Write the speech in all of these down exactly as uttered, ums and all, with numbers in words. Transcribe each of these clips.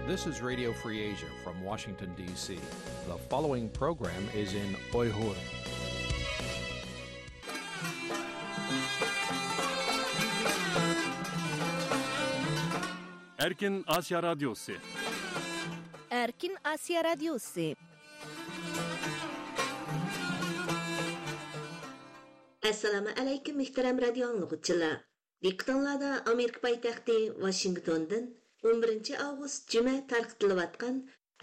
This is Radio Free Asia from Washington, D C. The following program is in Uyghur. Erkin Asya Radyosu. Erkin Asya Radyosu. Assalomu alaykum, muhtaram radio anglaguchilar. Diqqatinglarda Amerika poytaxti Washingtondin on birinchi avgust juma tarqatilayotgan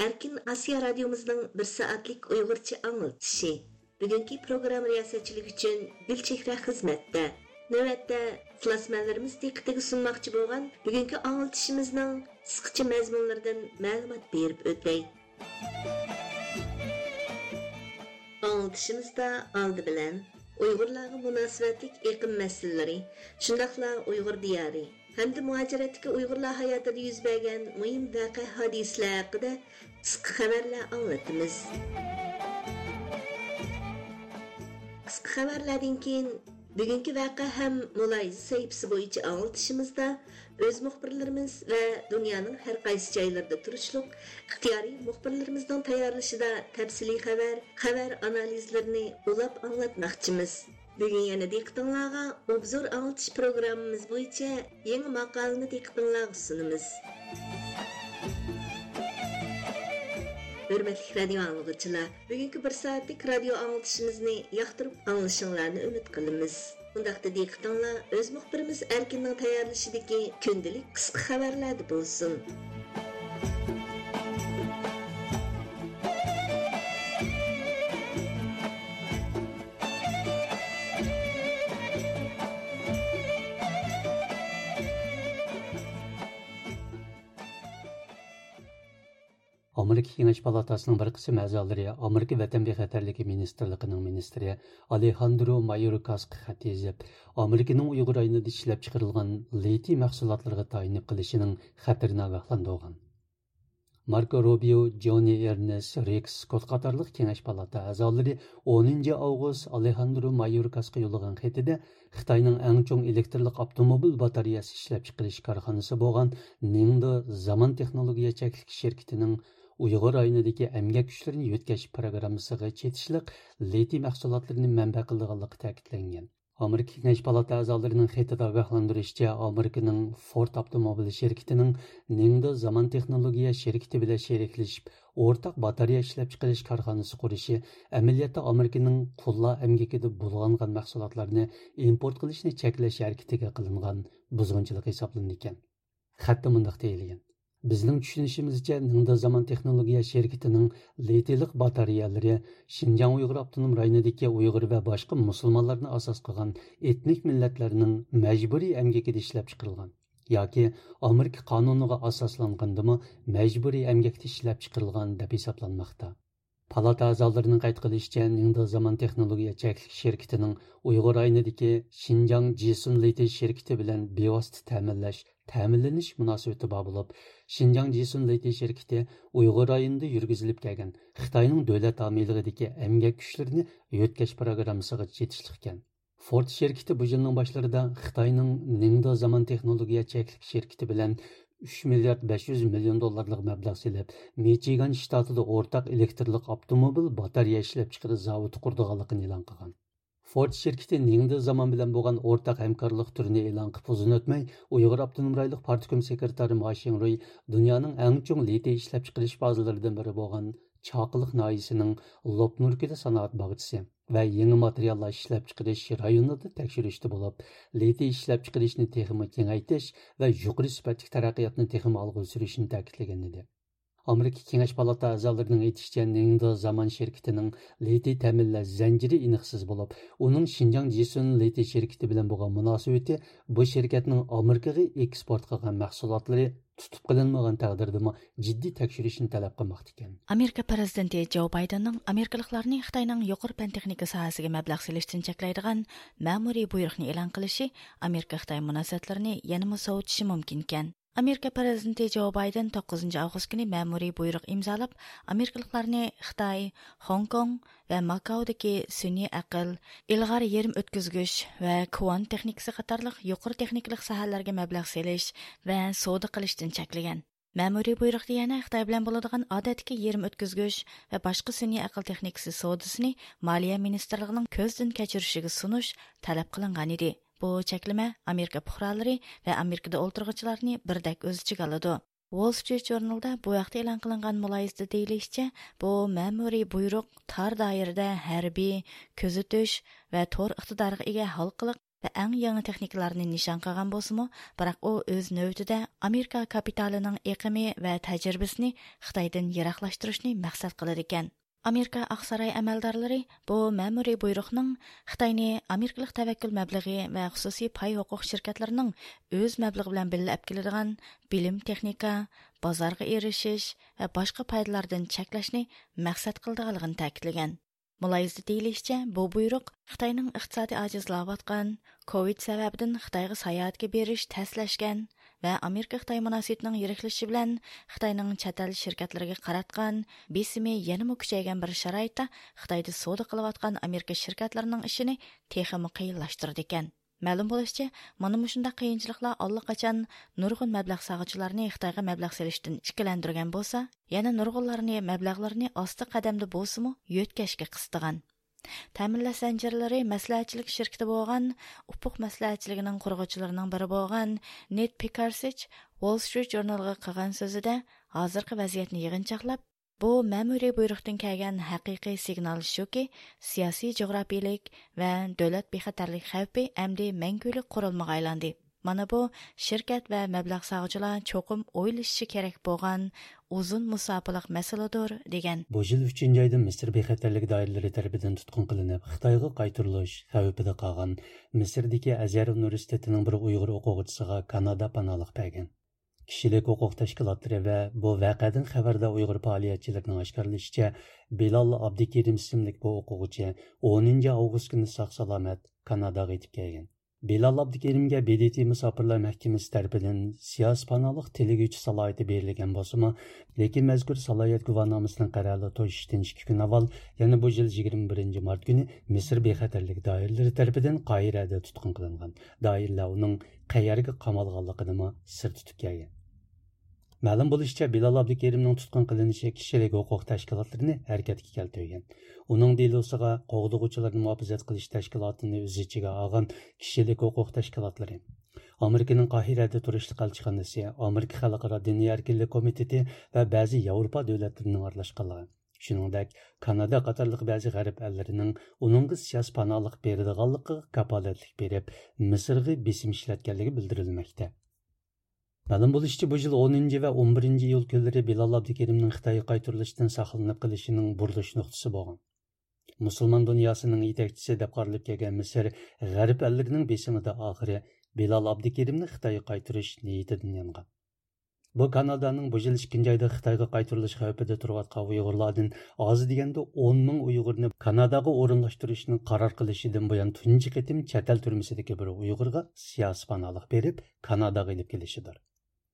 Erkin Asiya radiomizning bir soatlik uyg'urcha anglatishi. Bugungi programma riyosetchiligi uchun Gulchehra xizmatda. Navbatda ixlosmandlarimiz diqqatiga sunmoqchi bo'lgan bugungi anglitishimizning qisqacha mazmunlaridan ma'lumot berib o'tay. ئاڭلىتىشىمىزدا ئالدى بىلەن ئۇيغۇرلارغا مۇناسىۋەتلىك ئېقىم مەسىلىلىرى، شۇنداقلا ئۇيغۇر دىيارى ھەمدە مۇھاجىرەتتىكى ئۇيغۇرلار ھاياتىدا يۈز بەرگەن مۇھىم ۋەقە ھادىسىلەر ھەققىدە قىسقا خەۋەرلەر ئاڭلىتىمىز. قىسقا خەۋەرلەردىن كېيىن بۈگۈنكى ۋەقە ھەم مۇلاھىزە سەھىپىسى بويىچە ئاڭلىتىشىمىزدا ئۆز مۇخبىرلىرىمىز ۋە دۇنيانىڭ ھەر قايسى جايلىرىدا تۇرۇشلۇق ئىختىيارىي مۇخبىرلىرىمىزنىڭ تەييارلىشىدا تەپسىلىي خەۋەر، خەۋەر ئانالىزلىرىنى ئۇلاپ ئاڭلاتماقچىمىز. بۈگۈن يەنە دىققىتىڭلارغا ئوبزور ئاڭلىتىش پروگراممىمىز بويىچە يېڭى ماقالىنى دىققىتىڭلارغا سۇنىمىز. ھۆرمەتلىك رادىيو ئاڭلىغۇچىلار، بۈگۈنكى بىر سائەتلىك رادىيو ئاڭلىتىشىمىزنى ياقتۇرۇپ ئاڭلىشىڭلارنى ئۈمىد قىلىمىز. ئۇنداقتا دىققىتىڭلار ئۆز مۇخبىرىمىز ئەركىننىڭ تەييارلىشىدىكى كۈندىلىك قىسقا خەۋەرلەردە بولسۇن. ئامېرىكا كېڭەش پالاتاسىنىڭ بىر قىسىم ئەزالىرى ئامېرىكا ۋەتەن بىخەتەرلىكى مىنىستىرلىقىنىڭ مىنىستىرى ئالېھاندرو مايوركاسقا خەت يېزىپ، ئامېرىكىنىڭ ئۇيغۇر رايونىدا ئىشلەپچىقىرىلغان لىتىي مەھسۇلاتلىرىغا تايىنىپ قېلىشىنىڭ خەتىرىنى ئاگاھلاندۇرغان. ماركو روبىيو، جونى ئېرنېست، رېكس سكوت قاتارلىق كېڭەش پالاتا ئەزالىرى ئونىنچى ئاۋغۇست ئالېھاندرو مايوركاسقا يوللىغان خېتىدە، خىتاينىڭ ئەڭ چوڭ ئېلېكترلىق ئاپتوموبىل باتارېيەسى ئىشلەپچىقىرىش كارخانىسى بولغان نىڭدې زامان تېخنولوگىيە چەكلىك شىركىتىنىڭ ئۇيغۇر رايونىدىكى ئەمگەك كۈچلىرىنى يۆتكەش پىروگراممىسىغا چېتىشلىق لىتىي مەھسۇلاتلىرىنى مەنبە قىلىدىغانلىقى تەكىتلەنگەن. ئامېرىكا كېڭەش پالاتا ئەزالىرىنىڭ خېتىدە ئاگاھلاندۇرۇشىچە، ئامېرىكىنىڭ فورد ئاپتوموبىل شىركىتىنىڭ نىڭدې زامان تېخنولوگىيە شىركىتى بىلەن شېرىكلىشىپ، ئورتاق باتارېيە ئىشلەپچىقىرىش كارخانىسى قۇرۇشى ئەمەلىيەتتە ئامېرىكىنىڭ قۇللار ئەمگىكىدە بۇلغانغان مەھسۇلاتلارنى ئىمپورت قىلىشنى چەكلەش ھەرىكىتىگە قىلىنغان بۇزغۇنچىلىق ھېسابلىنىدىكەن. خەتتە مۇنداق دېيىلگەن: بىزنىڭ چۈشىنىشىمىزچە، نىڭدې زامان تېخنولوگىيە شىركىتىنىڭ لىتىيلىق باتارېيەلىرى شىنجاڭ ئۇيغۇر ئاپتونوم رايونىدىكى ئۇيغۇر ۋە باشقا مۇسۇلمانلارنى ئاساس قىلغان ئېتنىك مىللەتلەرنىڭ مەجبۇرىي ئەمگىكىدە ئىشلەپچىقىرىلغان ياكى ئامېرىكا قانۇنىغا ئاساسلانغاندىمۇ مەجبۇرىي ئەمگەكتە ئىشلەپچىقىرىلغان دەپ ھېسابلانماقتا. پالاتا ئەزالىرىنىڭ قەيت قىلىشىچە، نىڭدې زامان تېخنولوگىيە چەكلىك شىركىتىنىڭ ئۇيغۇر رايونىدىكى شىنجاڭ جىسۇن لىتىي شىركىتى بىلەن بىۋاسىتە تەمىنلەش، تەمىنلىنىش مۇناسىۋىتى بار بولۇپ، شىنجاڭ جىسۇن لىتىي شىركىتى ئۇيغۇر رايونىدا يۈرگۈزۈلۈپ كەلگەن خىتاينىڭ دۆلەت ھامىيلىقىدىكى ئەمگەك كۈچلىرىنى يۆتكەش پىروگراممىسىغا چېتىشلىقكەن. فورد شىركىتى بۇ يىلنىڭ باشلىرىدا خىتاينىڭ نىڭدې زامان تېخنولوگىيە چەكلىك شىركىتى بىلەن ئۈچ مىليارد بەش يۈز مىليون دوللارلىق مەبلەغ سېلىپ، مىچىگان شتاتىدا ئورتاق ئېلېكترلىق ئاپتوموبىل باتارېيە ئىشلەپچىقىرىش زاۋۇتى قۇرىدىغانلىقىنى ئېلان قىلغان. فورد شىركىتى نىڭدې زامان بىلەن بولغان ئورتاق ھەمكارلىق تۈرىنى ئېلان قىلىپ ئۇزۇن ئۆتمەي، ئۇيغۇر ئاپتونوم رايونلۇق پارتكوم سېكرېتارى ما شىڭرۇي دۇنيانىڭ ئەڭ چوڭ لىتىي ئىشلەپچىقىرىش بازىلىرىدىن بىرى بولغان چاقىلىق ناھىيىسىنىڭ لوپنۇركىدە سانائەت باغچىسى ۋە يېڭى ماتېرىياللار ئىشلەپچىقىرىش رايونىدا تەكشۈرۈشتە بولۇپ، لىتىي ئىشلەپچىقىرىشنى تېخىمۇ كېڭەيتىش ۋە يۇقىرى سۈپەتلىك تەرەققىياتنى تېخىمۇ ئالغا سۈرۈشنى تەكىتلىگەن ئىدى. ئامېرىكا كېڭەش پالاتا ئەزالىرىنىڭ ئېيتىشىچە، نىڭدې زامان شىركىتىنىڭ لىتىي تەمىنلەش زەنجىرى ئېنىقسىز بولۇپ، ئۇنىڭ شىنجاڭ جىسۇن لىتىي شىركىتى بىلەن بولغان مۇناسىۋىتى بۇ شىركەتنىڭ ئامېرىكىغا ئېكسپورت قىلغان مەھسۇلاتلىرى تۇتۇپ قېلىنمىغان تەقدىردىمۇ جىددىي تەكشۈرۈشنى تەلەپ قىلماقتا ئىكەن. ئامېرىكا پىرېزىدېنتى جو بايدېننىڭ ئامېرىكىلىقلارنى خىتاينىڭ يۇقىرى پەن تېخنىكا ساھەسىگە مەبلەغ سېلىشتىن چەكلەيدىغان مەمۇرىي بۇيرۇقنى ئېلان قىلىشى ئامېرىكا خىتاي مۇناسىۋەتلىرىنى يەنىمۇ سوۋۇتۇشى مۇمكىنكەن. ئامېرىكا پىرېزىدېنتى جو بايدېن توققۇزىنچى ئاۋغۇست كۈنى مەمۇرىي بۇيرۇق ئىمزالاپ، ئامېرىكىلىقلارنى خىتاي، خوڭكوڭ ۋە ماكاودىكى سۈنئىي ئەقىل، ئىلغار يېرىم ئۆتكۈزگۈچ ۋە كۋانت تېخنىكىسى قاتارلىق يۇقىرى تېخنىكىلىق ساھەلەرگە مەبلەغ سېلىش ۋە سودا قىلىشتىن چەكلىگەن. مەمۇرىي بۇيرۇقتا يەنە خىتاي بىلەن بولىدىغان ئادەتتىكى يېرىم ئۆتكۈزگۈچ ۋە باشقا سۈنئىي ئەقىل تېخنىكىسى سودىسىنى مالىيە مىنىستىرلىقىنىڭ كۆزدىن كەچۈرۈشىگە سۇنۇش تەلەپ قىلىنغان ئىدى. بۇ چەكلىمە ئامېرىكا پۇقرالىرى ۋە ئامېرىكىدا ئولتۇرغۇچىلارنى بىردەك ئۆز ئىچىگە ئالىدۇ. ۋول سترىت ژۇرنىلدا بۇ ھەقتە ئېلان قىلىنغان مۇلاھىزىدە دېيىلىشىچە، بۇ مەمۇرىي بۇيرۇق تار دائىرىدە ھەربىي، كۆزىتىش ۋە تور ئىقتىدارىغا ئىگە ھالقىلىق ۋە ئەڭ يېڭى تېخنىكىلارنى نىشان قىلغان بولسىمۇ، بىراق ئۇ ئۆز نۆۋىتىدە ئامېرىكا كاپىتالىنىڭ ئېقىمى ۋە تەجرىبىسىنى خىتايدىن يىراقلاشتۇرۇشنى مەقسەت قىلىدىكەن. ئامېرىكا ئاقساراي ئەمەلدارلىرى بۇ مەمۇرىي بۇيرۇقنىڭ خىتاينى ئامېرىكىلىق تەۋەككۈل مەبلىغى ۋە خۇسۇسىي پاي ھوقۇق شىركەتلىرىنىڭ ئۆز مەبلىغى بىلەن بىللە ئەپ كېلىدىغان بىلىم، تېخنىكا، بازارغا ئېرىشىش ۋە باشقا پايدىلاردىن چەكلەشنى مەقسەت قىلىدىغانلىقىنى تەكىتلىگەن. مۇلاھىزىدە دېيىلىشىچە، بۇ بۇيرۇق خىتاينىڭ ئىقتىسادىي ئاجىزلاۋاتقان، كوۋىد سەۋەبىدىن خىتايغا ساياھەتكە بېرىش تەسلەشكەن ۋە ئامېرىكا خىتاي مۇناسىۋىتىنىڭ يىرىكلىشىشى بىلەن خىتاينىڭ چەت ئەل شىركەتلىرىگە قاراتقان بېسىمى يەنىمۇ كۈچەيگەن بىر شارائىتتا خىتايدا سودا قىلىۋاتقان ئامېرىكا شىركەتلىرىنىڭ ئىشىنى تېخىمۇ قىيىنلاشتۇرىدىكەن. مەلۇم بولۇشىچە، مانا مۇشۇنداق قىيىنچىلىقلار ئاللىقاچان نۇرغۇن مەبلەغ سالغۇچىلارنى خىتايغا مەبلەغ سېلىشتىن ئىككىلەندۈرگەن بولسا، يەنە نۇرغۇنلارنى مەبلەغلىرىنى ئاستا قەدەمدە بولسىمۇ يۆتكەشكە قىستىغان. تەمىنلەش زەنجىرلىرى مەسلىھەتچىلىك شىركىتى بولغان ئۇپۇق مەسلىھەتچىلىكىنىڭ قۇرغۇچىلىرىنىڭ بىرى بولغان نېد پىكارسىچ ۋول سترىت ژۇرنىلىغا قىلغان سۆزىدە، ھازىرقى ۋەزىيەتنى يىغىنچاقلاپ، بۇ مەمۇرىي بۇيرۇقتىن كەلگەن ھەقىقىي سىگنال شۇكى، سىياسىي جۇغراپىيىلىك ۋە دۆلەت بىخەتەرلىك خەۋپى ئەمدى مەڭگۈلۈك قورالمىغا ئايلاندى. مانا بۇ شىركەت ۋە مەبلەغ سالغۇچىلار چوقۇم ئويلىشىشى كېرەك بولغان ئۇزۇن مۇساپىلىق مەسىلىدۇر، دېگەن. بۇ يىل ئۈچىنچى ئايدا مىسىر بىخەتەرلىك دائىرىلىرى تەرىپىدىن تۇتقۇن قىلىنىپ، خىتايغا قايتۇرۇلۇش خەۋپىدە قالغان مىسىردىكى ئەزھەر ئۇنىۋېرسىتېتىنىڭ بىر ئۇيغۇر ئوقۇغۇچىسىغا كانادا پاناھلىق بەرگەن. كىشىلىك ھوقۇق تەشكىلاتلىرى ۋە بۇ ۋەقەدىن خەۋەردار ئۇيغۇر پائالىيەتچىلىرىنىڭ ئاشكارىلىشىچە، بىلال ئابدۇكېرىم ئىسىملىك بۇ ئوقۇغۇچى ئونىنچى ئاۋغۇست كۈنى ساق-سالامەت كاناداغا يېتىپ كەلگەن. بىلال ئابدۇكېرىمگە ب د ت مۇساپىرلار مەھكىمىسى تەرىپىدىن سىياسىي پاناھلىق تىلىگۈچى سالاھىيىتى بېرىلگەن بولسىمۇ، لېكىن مەزكۇر سالاھىيەت گۇۋاھنامىسىنىڭ قەرەلى توشۇشتىن ئىككى كۈن ئاۋۋال يەنە بۇ يىل يىگىرمە بىرىنچى مارت كۈنى مىسىر بىخەتەرلىك دائىرىلىرى تەرىپىدىن قاھىرەدە تۇتقۇن قىلىنغان. دائىرىلەر ئۇنىڭ قەيەرگە قامالغانلىقىنىمۇ سىر تۇتۇپ كەلگەن. مەلۇم بولۇشىچە، بىلال ئابدۇكېرىمنىڭ تۇتقۇن قىلىنىشى كىشىلىك ھوقۇق تەشكىلاتلىرىنى ھەرىكەتكە كەلتۈرگەن. ئۇنىڭ دېلوسىغا قوغدىغۇچىلارنى مۇھاپىزەت قىلىش تەشكىلاتىنى ئۆز ئىچىگە ئالغان كىشىلىك ھوقۇق تەشكىلاتلىرى، ئامېرىكىنىڭ قاھىرەدە تۇرۇشلۇق ئەلچىخانىسى، ئامېرىكا خەلقئارا دىنىي ئەركىنلىك كومىتېتى ۋە بەزى ياۋروپا دۆلەتلىرىنىڭ ئارىلاشقانلىقى، شۇنىڭدەك كانادا قاتارلىق بەزى غەرب ئەللىرىنىڭ ئۇنىڭغا سىياسىي پاناھلىق بېرىدىغانلىقىغا كاپالەتلىك بېرىپ، مىسىرغا بېسىم ئىشلەتكەنلىكى بىلدۈرۈلمەكتە. مەلۇم بولۇشىچە، بۇ يىل ئونىنچى ۋە ئون بىرىنچى ئىيۇل كۈنلىرى بىلال ئابدۇكېرىمنىڭ خىتايغا قايتۇرۇلۇشتىن ساقلىنىپ قېلىشىنىڭ بۇرۇلۇش نۇقتىسى بولغان. مۇسۇلمان دۇنياسىنىڭ يېتەكچىسى دەپ قارىلىپ كەلگەن مىسىر غەرب ئەللىرىنىڭ بېسىمىدا ئاخىرى بىلال ئابدۇكېرىمنى خىتايغا قايتۇرۇش نىيىتىدىن يانغان. بۇ كانادانىڭ بۇ يىل ئىككىنچى ئايدا خىتايغا قايتۇرۇلۇش خەۋپىدە تۇرۇۋاتقان ئۇيغۇرلاردىن ئاز دېگەندە ئون مىڭ ئۇيغۇرنى كاناداغا ئورۇنلاشتۇرۇشنى قارار قىلىشىدىن بۇيان تۇنجى قېتىم چەت ئەل تۈرمىسىدىكى بىر ئۇيغۇرغا سىياسىي پاناھلىق بېرىپ، كاناداغا ئېلىپ كېلىشىدۇر.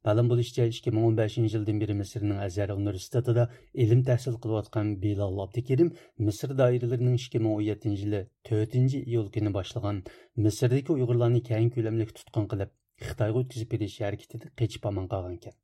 مەلۇم بولۇشىچە، ئىككى مىڭ ئون بەشىنچى يىلدىن بېرى مىسىرنىڭ ئەزھەر ئۇنىۋېرسىتېتىدا ئىلىم تەھسىل قىلىۋاتقان بىلال ئابدۇكېرىم مىسىر دائىرىلىرىنىڭ ئىككى مىڭ ئون يەتتىنچى يىلى تۆتىنچى ئىيۇل كۈنى باشلىغان مىسىردىكى ئۇيغۇرلارنى كەڭ كۆلەملىك تۇتقۇن قىلىپ، خىتايغا ئۆتكۈزۈپ بېرىش ھەرىكىتىدە قېچىپ ئامان قالغانىكەن.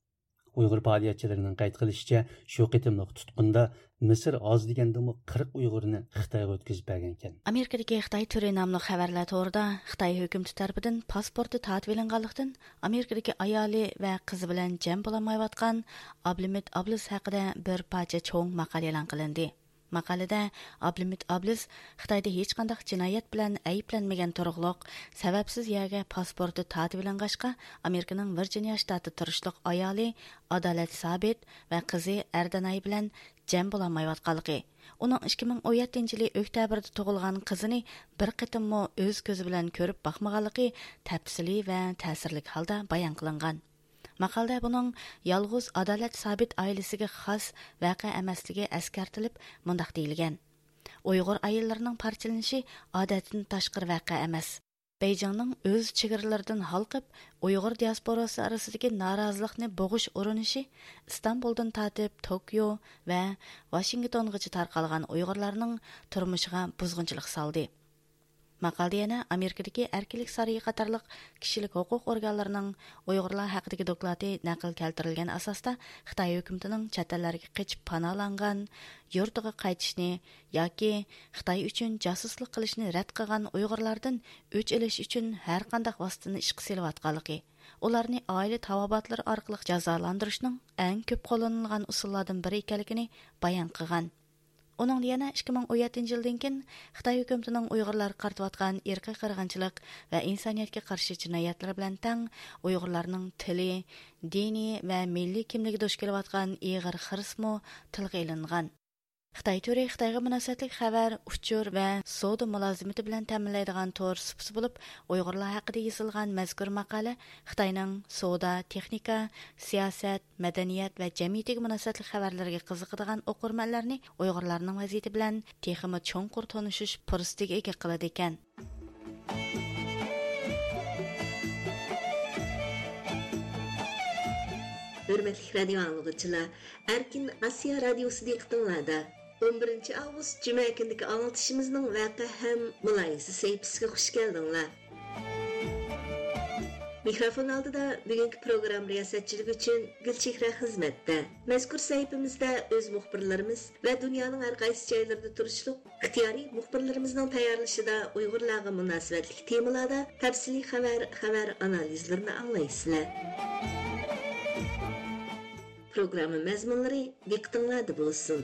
ئۇيغۇر پائالىيەتچىلىرىنىڭ قەيت قىلىشىچە، شۇ قېتىملىق تۇتقۇندا مىسىر ئاز دېگەندىمۇ قىرىق ئۇيغۇرنى خىتايغا ئۆتكۈزۈپ بەرگەنىكەن. ئامېرىكىدىكى خىتاي تۈرى ناملىق خەۋەرلەر تورىدا خىتاي ھۆكۈمىتى تەرىپىدىن پاسپورتى تارتىۋېلىنغانلىقتىن، ئامېرىكىدىكى ئايالى ۋە قىزى بىلەن جەم بولالمايۋاتقان ئابلىمىت ئابلىز ھەققىدە بىر پارچە چوڭ ماقالە ئېلان قىلىندى. ماقالىدە ئابلىمىت ئابلىز خىتايدا ھېچقانداق جىنايەت بىلەن ئەيىبلەنمىگەن تۇرۇقلۇق، سەۋەبسىز يەرگە پاسپورتى تارتىۋېلىنغاچقا، ئامېرىكىنىڭ ۋىرجىنىيا شتاتىدا تۇرۇشلۇق ئايالى ئادالەت سابىت ۋە قىزى ئەردەناي بىلەن جەم بولالمايۋاتقانلىقى، ئۇنىڭ ئىككى مىڭ ئون يەتتىنچى يىلى ئۆكتەبىردە تۇغۇلغان قىزىنى بىر قېتىممۇ ئۆز كۆزى بىلەن كۆرۈپ باقمىغانلىقى تەپسىلىي ۋە تەسىرلىك ھالدا بايان قىلىنغان. ماقالىدە بۇنىڭ يالغۇز ئادالەت سابىت ئائىلىسىگە خاس ۋەقە ئەمەسلىكى ئەسكەرتىلىپ، مۇنداق دېيىلگەن: ئۇيغۇر ئائىلىلىرىنىڭ پارچىلىنىشى ئادەتتىن تاشقىرى ۋەقە ئەمەس. بېيجىڭنىڭ ئۆز چېگرىلىرىدىن ھالقىپ، ئۇيغۇر دىياسپوراسى ئارىسىدىكى نارازىلىقنى بوغۇش ئۇرۇنۇشى ئىستانبۇلدىن تارتىپ توكيو ۋە ۋاشىنگتونغىچە تارقالغان ئۇيغۇرلارنىڭ تۇرمۇشىغا بۇزغۇنچىلىق سالدى. ماقالىدە يەنە ئامېرىكىدىكى ئەركىنلىك سارىيى قاتارلىق كىشىلىك ھوقۇق ئورگانلىرىنىڭ ئۇيغۇرلار ھەققىدىكى دوكلاتى نەقىل كەلتۈرۈلگەن ئاساستا، خىتاي ھۆكۈمىتىنىڭ چەت ئەللەرگە قېچىپ پاناھلانغان، يۇرتىغا قايتىشنى ياكى خىتاي ئۈچۈن جاسۇسلۇق قىلىشنى رەت قىلغان ئۇيغۇرلاردىن ئۆچ ئېلىش ئۈچۈن ھەرقانداق ۋاسىتىنى ئىشقا سېلىۋاتقانلىقى، ئۇلارنى ئائىلە تاۋابىئاتلىرى ئارقىلىق جازالاندۇرۇشنىڭ ئەڭ كۆپ قوللىنىلغان ئۇسۇللاردىن بىرى ئىكەنلىكىنى بايان قىلغان. ئۇنىڭدا يەنە ئىككى مىڭ ئون يەتتىنچى يىلدىن كېيىن خىتاي ھۆكۈمىتىنىڭ ئۇيغۇرلارغا قارىتىۋاتقان ئىرقىي قىرغىنچىلىق ۋە ئىنسانىيەتكە قارشى جىنايەتلىرى بىلەن تەڭ ئۇيغۇرلارنىڭ تىلى، دىنى ۋە مىللىي كىملىكى دۇچ كېلىۋاتقان ئېغىر خىرىسمۇ تىلغا ئېلىنغان. خىتاي تورى خىتايغا مۇناسىۋەتلىك خەۋەر، ئۇچۇر ۋە سودا مۇلازىمىتى بىلەن تەمىنلەيدىغان تور سۇپىسى بولۇپ، ئۇيغۇرلار ھەققىدە يېزىلغان مەزكۇر ماقالە خىتاينىڭ سودا، تېخنىكا، سىياسەت، مەدەنىيەت ۋە جەمئىيىتىگە مۇناسىۋەتلىك خەۋەرلىرىگە قىزىقىدىغان ئوقۇرمەنلەرنى ئۇيغۇرلارنىڭ ۋەزىيىتى بىلەن تېخىمۇ چوڭقۇر تونۇشۇش پۇرسىتىگە ئىگە قىلىدىكەن. ھۆرمەتلىك رادىيو ئاڭلىغۇچىلار، ئەركىن ئاسىيا رادىيوسى دىققىتىڭلاردا. ئون بىرىنچى ئاۋغۇست جۈمە كۈنىدىكى ئاڭلىتىشىمىزنىڭ ۋەقە ھەم مۇلاھىزە سەھىپىسىگە خۇش كەلدىڭلار. مىكروفون ئالدىدا بۈگۈنكى پروگرامما رىياسەتچىلىكى ئۈچۈن گۈلچېھرە خىزمەتتە. مەزكۇر سەھىپىمىزدە ئۆز مۇخبىرلىرىمىز ۋە دۇنيانىڭ ھەر قايسى جايلىرىدا تۇرۇشلۇق ئىختىيارىي مۇخبىرلىرىمىزنىڭ تەييارلىشىدا ئۇيغۇرلارغا مۇناسىۋەتلىك تېمىلاردا تەپسىلىي خەۋەر، خەۋەر ئانالىزلىرىنى ئاڭلايسىلەر. پروگرامما مەزمۇنلىرى دىققىتىڭلاردا بولسۇن.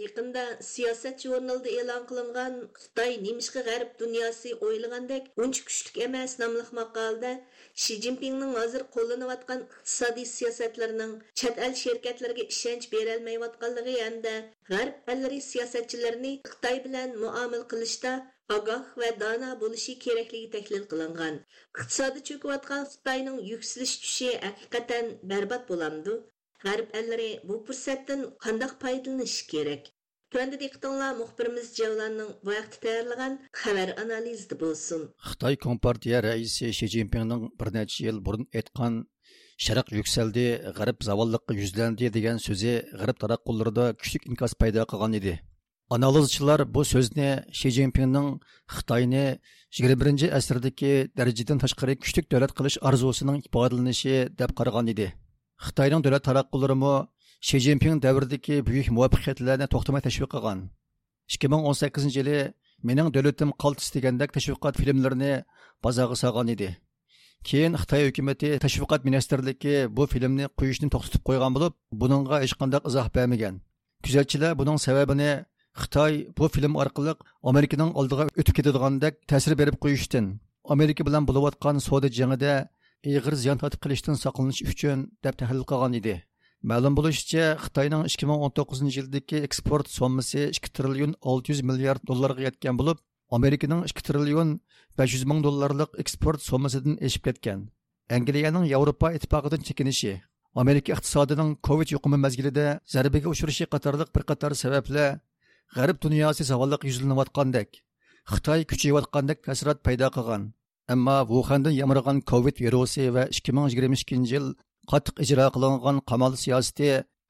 يېقىندا سىياسەت ژۇرنىلىدا ئېلان قىلىنغان «خىتاي نېمىشقا غەرب دۇنياسى ئويلىغاندەك ئۇنچە كۈچلۈك ئەمەس» ناملىق ماقالىدە شى جىنپىڭنىڭ ھازىر قوللىنىۋاتقان ئىقتىسادىي سىياسەتلىرىنىڭ چەت ئەل شىركەتلىرىگە ئىشەنچ بېرەلمەيۋاتقانلىقى ھەمدە غەرب ئەللىرى سىياسەتچىلىرىنى خىتاي بىلەن مۇئامىلە قىلىشتا ئاگاھ ۋە دانا بولۇشى كېرەكلىكى تەھلىل قىلىنغان. ئىقتىسادى چۆكۈۋاتقان خىتاينىڭ يۈكسىلىش كۈچى ھەقىقەتەن بەربات بولامدۇ؟ غەرب ئەللىرى بۇ پۇرسەتتىن قانداق پايدىلىنىشى كېرەك؟ تۆۋەندە دىققىتىڭلار مۇخبىرىمىز جەۋلاننىڭ بۇ ھەقتە تەييارلىغان خەۋەر ئانالىزىدا بولسۇن. خىتاي كومپارتىيە رەئىسى شى جىنپىڭنىڭ بىر نەچچە يىل بۇرۇن ئېيتقان «شەرق يۈكسەلدى، غەرب زاۋاللىققا يۈزلەندى» دېگەن سۆزى غەرب تاراتقۇلىرىدا كۈچلۈك ئىنكاس پەيدا قىلغان ئىدى. ئانالىزچىلار بۇ سۆزنى شى جىنپىڭنىڭ خىتاينى يىگىرمە بىرىنچى ئەسىردىكى دەرىجىدىن تاشقىرى كۈچلۈك دۆلەت قىلىش ئارزۇسىنىڭ ئىپادىلىنىشى دەپ قارىغان ئىدى. خىتاينىڭ دۆلەت تاراتقۇلىرىمۇ شى جىنپىڭ دەۋرىدىكى بۈيۈك مۇۋەپپەقىيەتلەرنى توختىماي تەشۋىق قىلغان. ئىككى مىڭ ئون سەككىزىنچى يىلى «مېنىڭ دۆلىتىم قالتىس» دېگەندەك تەشۋىقات فىلىملىرىنى بازارغا سالغان ئىدى. كېيىن خىتاي ھۆكۈمىتى تەشۋىقات مىنىستىرلىكى بۇ فىلىمنى قويۇشنى توختىتىپ قويغان بولۇپ، بۇنىڭغا ھېچقانداق ئىزاھ بەرمىگەن. كۆزەتچىلەر بۇنىڭ سەۋەبىنى خىتاي بۇ فىلىم ئارقىلىق ئامېرىكىنىڭ ئالدىغا ئۆتۈپ كېتىدىغاندەك تەسىر بېرىپ قويۇشتىن، ئامېرىكا بىلەن بولۇۋاتقان سودا جېڭىدە ئېغىر زىيان تارتىپ قېلىشتىن ساقلىنىش ئۈچۈن، دەپ تەھلىل قىلغان ئىدى. مەلۇم بولۇشىچە، خىتاينىڭ ئىككى مىڭ ئون توققۇزىنچى يىلدىكى ئېكسپورت سوممىسى ئىككى تىرىليون ئالتە يۈز مىليارد دوللارغا يەتكەن بولۇپ، ئامېرىكىنىڭ ئىككى تىرىليون بەش يۈز مىڭ دوللارلىق ئېكسپورت سوممىسىدىن ئېشىپ كەتكەن. ئەنگلىيەنىڭ ياۋروپا ئىتتىپاقىدىن چېكىنىشى، ئامېرىكا ئىقتىسادىنىڭ كوۋىد يۇقۇمى مەزگىلىدە زەربىگە ئۇچرىشى قاتارلىق بىر قاتار سەۋەبلەر غەرب دۇنياسى زاۋاللىققا يۈزلىنىۋاتقاندەك، خىتاي كۈچىيىۋاتقاندەك تەسىرات پەيدا قىلغان. ئەمما ۋۇخەندىن يامرىغان كوۋىد ۋىرۇسى ۋە ئىككى مىڭ يىگىرمە ئىككىنچى يىل قاتتىق ئىجرا قىلىنغان قامال سىياسىتى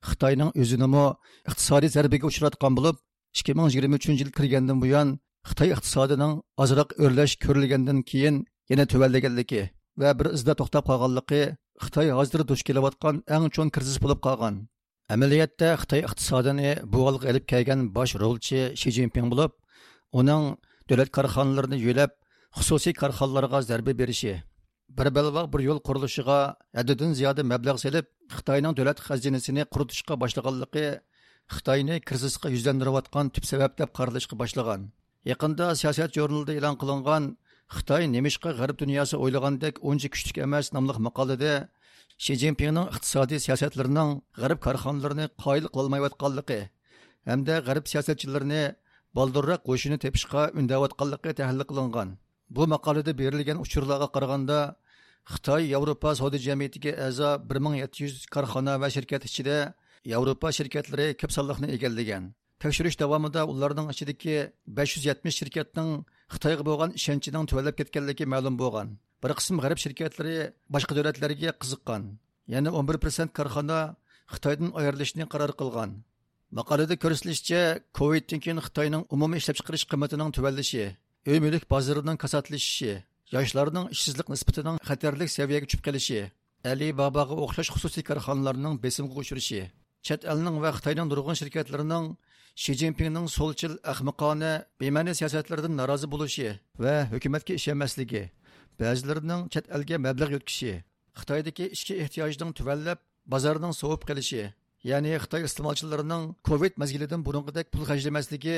خىتاينىڭ ئۆزىنىمۇ ئىقتىسادىي زەربىگە ئۇچراتقان بولۇپ، ئىككى مىڭ يىگىرمە ئۈچىنچى يىل كىرگەندىن بۇيان، خىتاي ئىقتىسادىنىڭ ئازراق ئۆرلەش كۆرۈلگەندىن كېيىن يەنە تۆۋەنلىگەنلىكى ۋە بىر ئىزدا توختاپ قالغانلىقى خىتاي ھازىر دۇچ كېلىۋاتقان ئەڭ چوڭ كىرىزىس بولۇپ قالغان. ئەمەلىيەتتە، خىتاي ئىقتىسادىنى بۇ ھالغا ئېلىپ كەلگەن باش رولچى شى جىنپىڭ بولۇپ، ئۇنىڭ دۆلەت كارخانىلىرىنى يۆلەپ، خۇسۇسىي كارخانىلارغا زەربە بېرىشى، بىر بەلباغ بىر يول قۇرۇلۇشىغا ھەددىدىن زىيادە مەبلەغ سېلىپ، خىتاينىڭ دۆلەت خەزىنىسىنى قۇرۇتۇشقا باشلىغانلىقى خىتاينى كىرىزىسقا يۈزلەندۈرۈۋاتقان تۈپ سەۋەب دەپ قارىلىشقا باشلىغان. يېقىندا سىياسەت ژۇرنىلىدا ئېلان قىلىنغان «خىتاي نېمىشقا غەرب دۇنياسى ئويلىغاندەك ئۇنچە كۈچلۈك ئەمەس» ناملىق ماقالىدە شى جىنپىڭنىڭ ئىقتىسادىي سىياسەتلىرىنىڭ غەرب كارخانىلىرىنى قايىل قىلالمايۋاتقانلىقى ھەمدە غەرب سىياسەتچىلىرىنى بالدۇرراق ھوشىنى تېپىشقا ئۈندەۋاتقانلىقى تەھلىل قىلىنغان. بۇ ماقالىدە بېرىلگەن ئۇچۇرلارغا قارىغاندا، خىتاي ياۋروپا سودا جەمئىيىتىگە ئەزا بىر مىڭ يەتتە يۈز كارخانا ۋە شىركەت ئىچىدە ياۋروپا شىركەتلىرى كۆپ سانلىقنى ئىگىلىگەن. تەكشۈرۈش داۋامىدا ئۇلارنىڭ ئىچىدىكى بەش يۈز يەتمىش شىركەتنىڭ خىتايغا بولغان ئىشەنچىنىڭ تۆۋەنلەپ كەتكەنلىكى مەلۇم بولغان. بىر قىسىم غەرب شىركەتلىرى باشقا دۆلەتلەرگە قىزىققان. يەنە ئون بىر پىرسەنت كارخانا خىتايدىن ئايرىلىشنى قارار قىلغان. ماقالىدە كۆرسىتىلىشىچە، كوۋىدتىن كېيىن خىتاينىڭ ئومۇمىي ئىشلەپچىقىرىش قىممىتىنىڭ تۆۋەنلىشى، ئۆي مۈلۈك بازىرىنىڭ كاساتلىشىشى، ياشلارنىڭ ئىشسىزلىق نىسبىتىنىڭ خەتەرلىك سەۋىيەگە چۈشۈپ قېلىشى، ئەلى باباغا ئوخشاش خۇسۇسىي كارخانىلارنىڭ بېسىمغا ئۇچرىشى، چەت ئەلنىڭ ۋە خىتاينىڭ نۇرغۇن شىركەتلىرىنىڭ شى جىنپىڭنىڭ سولچىل، ئەخمىقانە، بىمەنە سىياسەتلىرىدىن نارازى بولۇشى ۋە ھۆكۈمەتكە ئىشەنمەسلىكى، بەزىلىرىنىڭ چەت ئەلگە مەبلەغ يۆتكىشى، خىتايدىكى ئىچكى ئېھتىياجنىڭ تۆۋەنلەپ، بازارنىڭ سوۋۇپ قېلىشى، يەنى خىتاي ئىستېمالچىلىرىنىڭ كوۋىد مەزگىلىدىن بۇرۇنقىدەك پۇل خەجلىمەسلىكى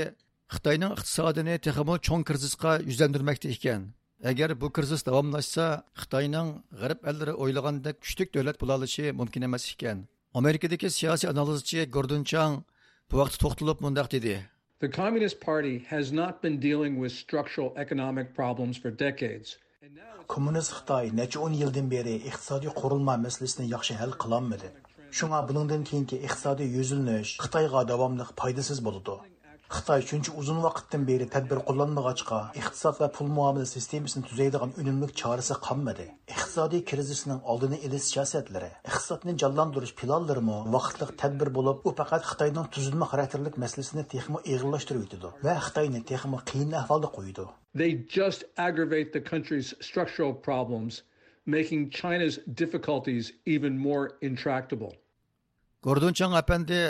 خىتاينىڭ ئىقتىسادىنى تېخىمۇ چوڭ كىرىزىسقا يۈزلەندۈرمەكتە ئىكەن. ئەگەر بۇ كىرىزىس داۋاملاشسا، خىتاينىڭ غەرب ئەللىرى ئويلىغاندەك كۈچلۈك دۆلەت بولالىشى مۇمكىن ئەمەس ئىكەن. ئامېرىكىدىكى سىياسىي ئانالىزچى گوردون چاڭ بۇ ھەقتە توختىلىپ مۇنداق دېدى. The Communist Party has not been dealing with structural economic problems for decades. كوممۇنىست خىتاي نەچچە ئون يىلدىن بېرى ئىقتىسادىي قۇرۇلما مەسىلىسىنى ياخشى ھەل قىلالمىدى. شۇڭا بۇنىڭدىن كېيىنكى ئىقتىسادىي يۈزلىنىش خىتايغا داۋاملىق پايدىسىز بولىدۇ. خىتاي شۇنچە ئۇزۇن ۋاقىتتىن بېرى تەدبىر قوللانمىغاچقا، ئىقتىساد ۋە پۇل مۇئامىلە سىستېمىسىنى تۈزەيدىغان ئۈنۈملۈك چارىسى قالمىدى. ئىقتىسادىي كىرىزىسنىڭ ئالدىنى ئېلىش سىياسەتلىرى، ئىقتىسادنى جانلاندۇرۇش پىلانلىرىمۇ ۋاقىتلىق تەدبىر بولۇپ، ئۇ پەقەت خىتاينىڭ تۈزۈلمە خاراكتېرلىك مەسىلىسىنى تېخىمۇ ئېغىرلاشتۇرۇۋېتىدۇ ۋە خىتاينى تېخىمۇ قىيىن ئەھۋالدا قويىدۇ. They just aggravate the country's structural problems, making China's difficulties even more intractable. گوردون چاڭ ئەپەندى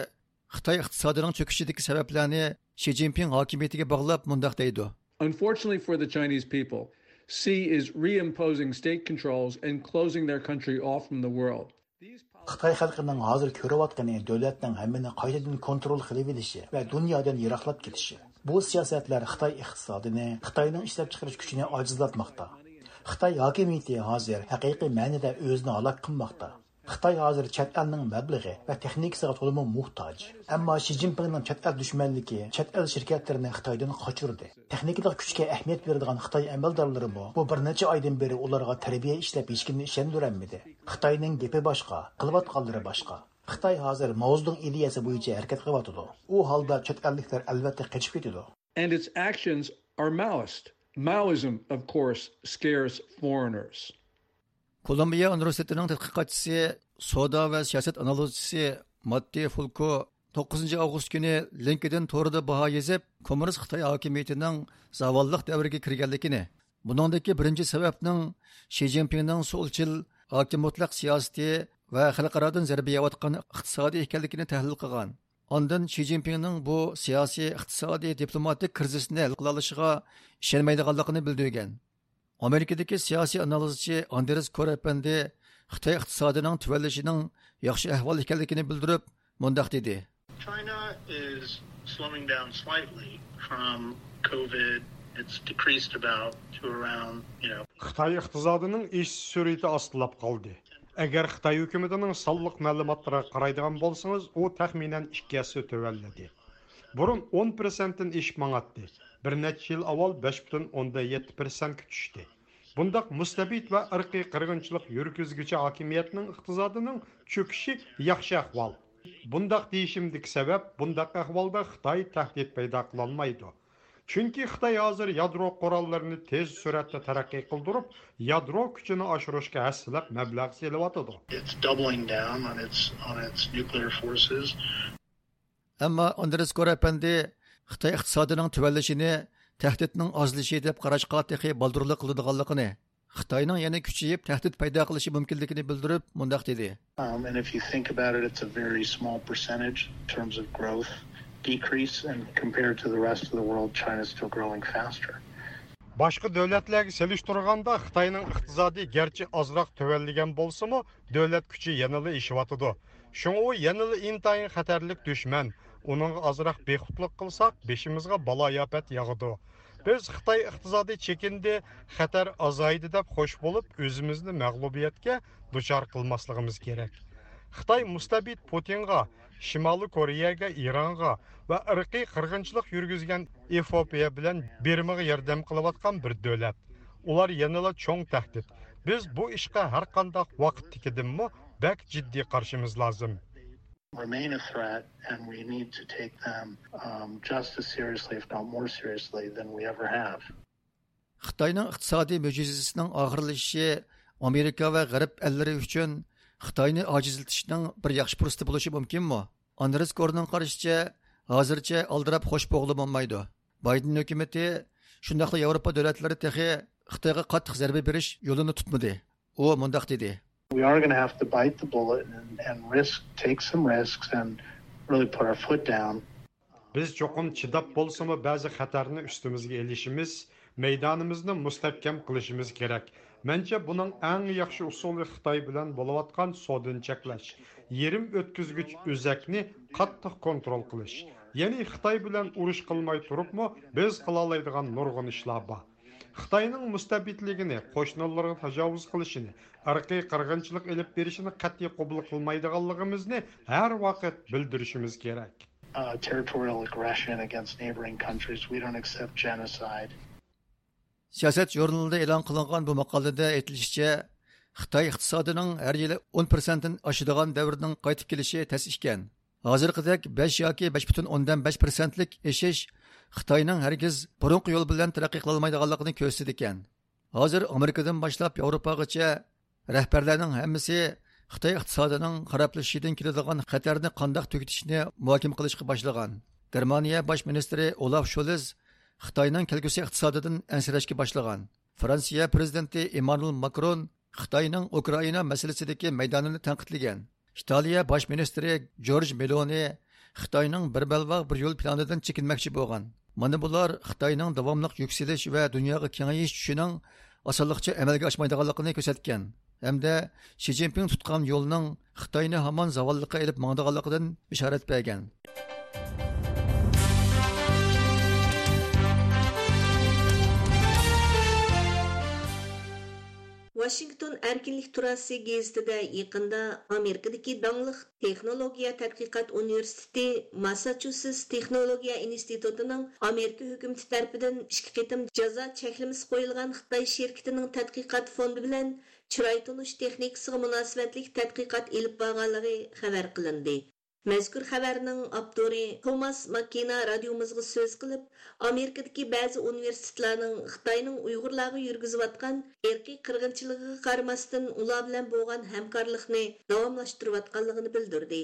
خىتاي ئىقتىسادىنىڭ چۆكۈشىدىكى سەۋەبلەرنى شى جىنپىڭ ھاكىمىيىتىگە باغلاپ مۇنداق دەيدۇ. Unfortunately for the Chinese people, Xi is reimposing state controls and closing their country off from the world. خىتاي خەلقىنىڭ ھازىر كۆرۈۋاتقىنى دۆلەتنىڭ ھەممىنى قايتىدىن كونترول قىلىۋېلىشى ۋە دۇنيادىن يىراقلاپ كېتىشى. بۇ سىياسەتلەر خىتاي ئىقتىسادىنى، خىتاينىڭ ئىشلەپچىقىرىش كۈچىنى ئاجىزلاتماقتا. خىتاي ھاكىمىيىتى ھازىر ھەقىقىي مەنىدە ئۆزىنى ھالاك قىلماقتا. خىتاي ھازىر چەت ئەلنىڭ مەبلىغى ۋە تېخنىكىسىغا تولىمۇ موھتاج. ئەمما شى جىنپىڭنىڭ چەت ئەل دۈشمەنلىكى چەت ئەل شىركەتلىرىنى خىتايدىن قاچۇردى. تېخنىكىلىق كۈچكە ئەھمىيەت بېرىدىغان خىتاي ئەمەلدارلىرىمۇ بۇ بىر نەچچە ئايدىن بېرى ئۇلارغا تەربىيە ئىشلەپ ھېچكىمنى ئىشەندۈرەلمىدى. خىتاينىڭ گېپى باشقا، قىلىۋاتقانلىرى باشقا. خىتاي ھازىر ماۋزېدۇڭ ئىدىيەسى بويىچە ھەرىكەت قىلىۋاتىدۇ. ئۇ ھالدا چەت ئەللىكلەر ئەلۋەتتە قېچىپ كېتىدۇ. And its actions are Maoist. Maoism, of course, scares foreigners. كولومبىيە ئۇنىۋېرسىتېتىنىڭ تەتقىقاتچىسى، سودا ۋە سىياسەت ئانالىزچىسى ماتتى فۇلكو توققۇزىنچى ئاۋغۇست كۈنى لىنكېدىن تورىدا باھا يېزىپ، كوممۇنىست خىتاي ھاكىمىيىتىنىڭ زاۋاللىق دەۋرىگە كىرگەنلىكىنى، بۇنىڭدىكى بىرىنچى سەۋەبنىڭ شى جىنپىڭنىڭ سولچىل، ھاكىم مۇتلەق سىياسىتى ۋە خەلقئارادىن زەربە يەۋاتقان ئىقتىسادى ئىكەنلىكىنى تەھلىل قىلغان. ئاندىن شى جىنپىڭنىڭ بۇ سىياسىي، ئىقتىسادىي، دىپلوماتىك كىرىزىسنى ھەل قىلالىشىغا ئىشەنمەيدىغانلىقىنى بىلدۈرگەن. ئامېرىكىدىكى سىياسىي ئانالىزچى ئاندرېس كور ئەپەندى خىتاي ئىقتىسادىنىڭ تۆۋەنلىشىنىڭ ياخشى ئەھۋال ئىكەنلىكىنى بىلدۈرۈپ، مۇنداق دېدى. China is slowing down slightly from COVID. It's decreased about to around, you know. خىتاي ئىقتىسادىنىڭ ئېشىش سۈرئىتى ئاستىلاپ قالدى. ئەگەر خىتاي ھۆكۈمىتىنىڭ سانلىق مەلۇماتلىرىغا قارايدىغان بولسىڭىز، ئۇ تەخمىنەن ئىككى ھەسسە تۆۋەنلىدى. بۇرۇن ئون پىرسەنتتىن ئېشىپ ماڭاتتى. بىر نەچچە يىل ئاۋۋال بەش پۈتۈن ئوندىن يەتتە پىرسەنتكە چۈشتى. بۇنداق مۇستەبىت ۋە ئىرقىي قىرغىنچىلىق يۈرگۈزگۈچى ھاكىمىيەتنىڭ ئىقتىسادىنىڭ چۆكۈشى ياخشى ئەھۋال. بۇنداق دېيىشىمدىكى سەۋەب، بۇنداق ئەھۋالدا خىتاي تەھدىت پەيدا قىلالمايدۇ. چۈنكى خىتاي ھازىر يادرو قوراللىرىنى تېز سۈرئەتتە تەرەققىي قىلدۇرۇپ، يادرو كۈچىنى ئاشۇرۇشقا ھەسسىلەپ مەبلەغ سېلىۋاتىدۇ. It's doubling down on its, on its nuclear forces. ئەمما ئاندرېس كور ئەپەندى خىتاي ئىقتىسادىنىڭ تۆۋەنلىشىنى تەھدىتنىڭ ئازلىشى دەپ قاراشقا تېخى بالدۇرلۇق قىلىدىغانلىقىنى، خىتاينىڭ يەنە كۈچىيىپ تەھدىت پەيدا قىلىشى مۇمكىنلىكىنى بىلدۈرۈپ مۇنداق دېدى. Um, and if you think about it, it's a very small percentage in terms of growth decrease, and compared to the rest of the world, China's still growing faster. باشقا دۆلەتلەرگە سېلىشتۇرغاندا خىتاينىڭ ئىقتىسادى گەرچە ئازراق تۆۋەنلىگەن بولسىمۇ، دۆلەت كۈچى يەنىلا ئېشىۋاتىدۇ. شۇڭا ئۇ يەنىلا ئىنتايىن خەتەرلىك دۈشمەن. ئۇنىڭغا ئازراق بىخۇدلۇق قىلساق، بېشىمىزغا بالايىئاپەت ياغىدۇ. بىز خىتاي ئىقتىسادى چېكىندى، خەتەر ئازايدى دەپ خوش بولۇپ، ئۆزىمىزنى مەغلۇبىيەتكە دۇچار قىلماسلىقىمىز كېرەك. خىتاي مۇستەبىت پۇتىنغا، شىمالىي كورېيەگە، ئىرانغا ۋە ئىرقىي قىرغىنچىلىق يۈرگۈزگەن ئېفىئوپىيە بىلەن بىرمىغا ياردەم قىلىۋاتقان بىر دۆلەت. ئۇلار يەنىلا چوڭ تەھدىت. بىز بۇ ئىشقا ھەرقانداق ۋاقىتتىكىدىنمۇ بەك جىددىي قارىشىمىز لازىم. remain a threat, and we need to take them um, just as seriously, if not more seriously, than we ever have. خىتاينىڭ ئىقتىسادىي مۆجىزىسىنىڭ ئاخىرلىشىشى ئامېرىكا ۋە غەرب ئەللىرى ئۈچۈن خىتاينى ئاجىزلىتىشنىڭ بىر ياخشى پۇرسىتى بولۇشى مۇمكىنمۇ؟ ئاندرېس كورنىڭ قارىشىچە، ھازىرچە ئالدىراپ خوش بولغىلى بولمايدۇ. بايدېن ھۆكۈمىتى، شۇنداقلا ياۋروپا دۆلەتلىرى تېخى خىتايغا قاتتىق زەربە بېرىش يولىنى تۇتمىدى. ئۇ مۇنداق دېدى. We are going to have to bite the bullet and, and risk, take some risks and really put our foot down. بىز چوقۇم چىداپ بولسىمۇ بەزى خەتەرنى ئۈستىمىزگە ئېلىشىمىز، مەيدانىمىزنى مۇستەھكەم قىلىشىمىز كېرەك. مەنچە بۇنىڭ ئەڭ ياخشى ئۇسۇلى خىتاي بىلەن بولۇۋاتقان سودىنى چەكلەش، يېرىم ئۆتكۈزگۈچ ئۆزەكنى قاتتىق كونترول قىلىش. يەنى خىتاي بىلەن ئۇرۇش قىلماي تۇرۇپمۇ بىز قىلالايدىغان نۇرغۇن ئىشلار بار. خىتاينىڭ مۇستەبىتلىكىنى، قوشنىلىرىغا تاجاۋۇز قىلىشىنى، ئىرقىي قىرغىنچىلىق ئېلىپ بېرىشىنى قەتئىي قوبۇل قىلمايدىغانلىقىمىزنى ھەر ۋاقىت بىلدۈرۈشىمىز كېرەك. Uh, territorial aggression against neighboring countries. We don't accept genocide. سىياسەت ژۇرنىلىدا ئېلان قىلىنغان بۇ ماقالىدە ئېيتىلىشىچە، خىتاي ئىقتىسادىنىڭ ھەر يىلى ئون پىرسەنتتىن ئاشىدىغان دەۋرنىڭ قايتىپ كېلىشى تەس ئىكەن. ھازىرقىدەك بەش ياكى بەش پۈتۈن ئوندىن بەش پىرسەنتلىك ئېشىش خىتاينىڭ ھەرگىز بۇرۇنقى يول بىلەن تەرەققىي قىلالمايدىغانلىقىنى كۆرسىتىدىكەن. ھازىر ئامېرىكىدىن باشلاپ ياۋروپاغىچە رەھبەرلەرنىڭ ھەممىسى خىتاي ئىقتىسادىنىڭ خارابلىشىشىدىن كېلىدىغان خەتەرنى قانداق تۈگىتىشنى مۇھاكىمە قىلىشقا باشلىغان. گېرمانىيە باش مىنىستىرى ئولاف شولز خىتاينىڭ كەلگۈسى ئىقتىسادىدىن ئەنسىرەشكە باشلىغان. فرانسىيە پرېزىدېنتى ئېممانۇئېل ماكرون خىتاينىڭ ئۇكرائىنا مەسىلىسىدىكى مەيدانىنى تەنقىدلىگەن. ئىتالىيە باش مىنىستىرى جورج مېلونى خىتاينىڭ بىر بەلباغ بىر يول پىلانىدىن چېكىنمەكچى بولغان. مانا بۇلار خىتاينىڭ داۋاملىق يۈكسىلىش ۋە دۇنياغا كېڭىيىش چۈشىنىڭ ئاسانلىقچە ئەمەلگە ئاشمايدىغانلىقىنى كۆرسەتكەن ھەمدە شى جىنپىڭ تۇتقان يولىنىڭ خىتاينى ھامان زاۋاللىققا ئېلىپ ماڭىدىغانلىقىدىن بېشارەت بەرگەن. ۋاشىنگتون ئەركىنلىك تۇراسى گېزىتىدە يېقىندا ئامېرىكىدىكى داڭلىق تېخنولوگىيە تەتقىقات ئۇنىۋېرسىتېتى ماسساچۇسېتس تېخنولوگىيە ئىنستىتۇتىنىڭ ئامېرىكا ھۆكۈمىتى تەرىپىدىن ئىككى قېتىم جازا چەكلىمىسى قويۇلغان خىتاي شىركىتىنىڭ تەتقىقات فوندى بىلەن چىراي تونۇش تېخنىكىسىغا مۇناسىۋەتلىك تەتقىقات ئېلىپ بارغانلىقى خەۋەر قىلىندى. مەزكۇر خەۋەرنىڭ ئاپتورى توماس ماككېنا رادىيومىزغا سۆز قىلىپ، ئامېرىكىدىكى بەزى ئۇنىۋېرسىتېتلارنىڭ خىتاينىڭ ئۇيغۇرلارغا يۈرگۈزۈۋاتقان ئىرقىي قىرغىنچىلىقىغا قارىماستىن، ئۇلار بىلەن بولغان ھەمكارلىقنى داۋاملاشتۇرۇۋاتقانلىقىنى بىلدۈردى.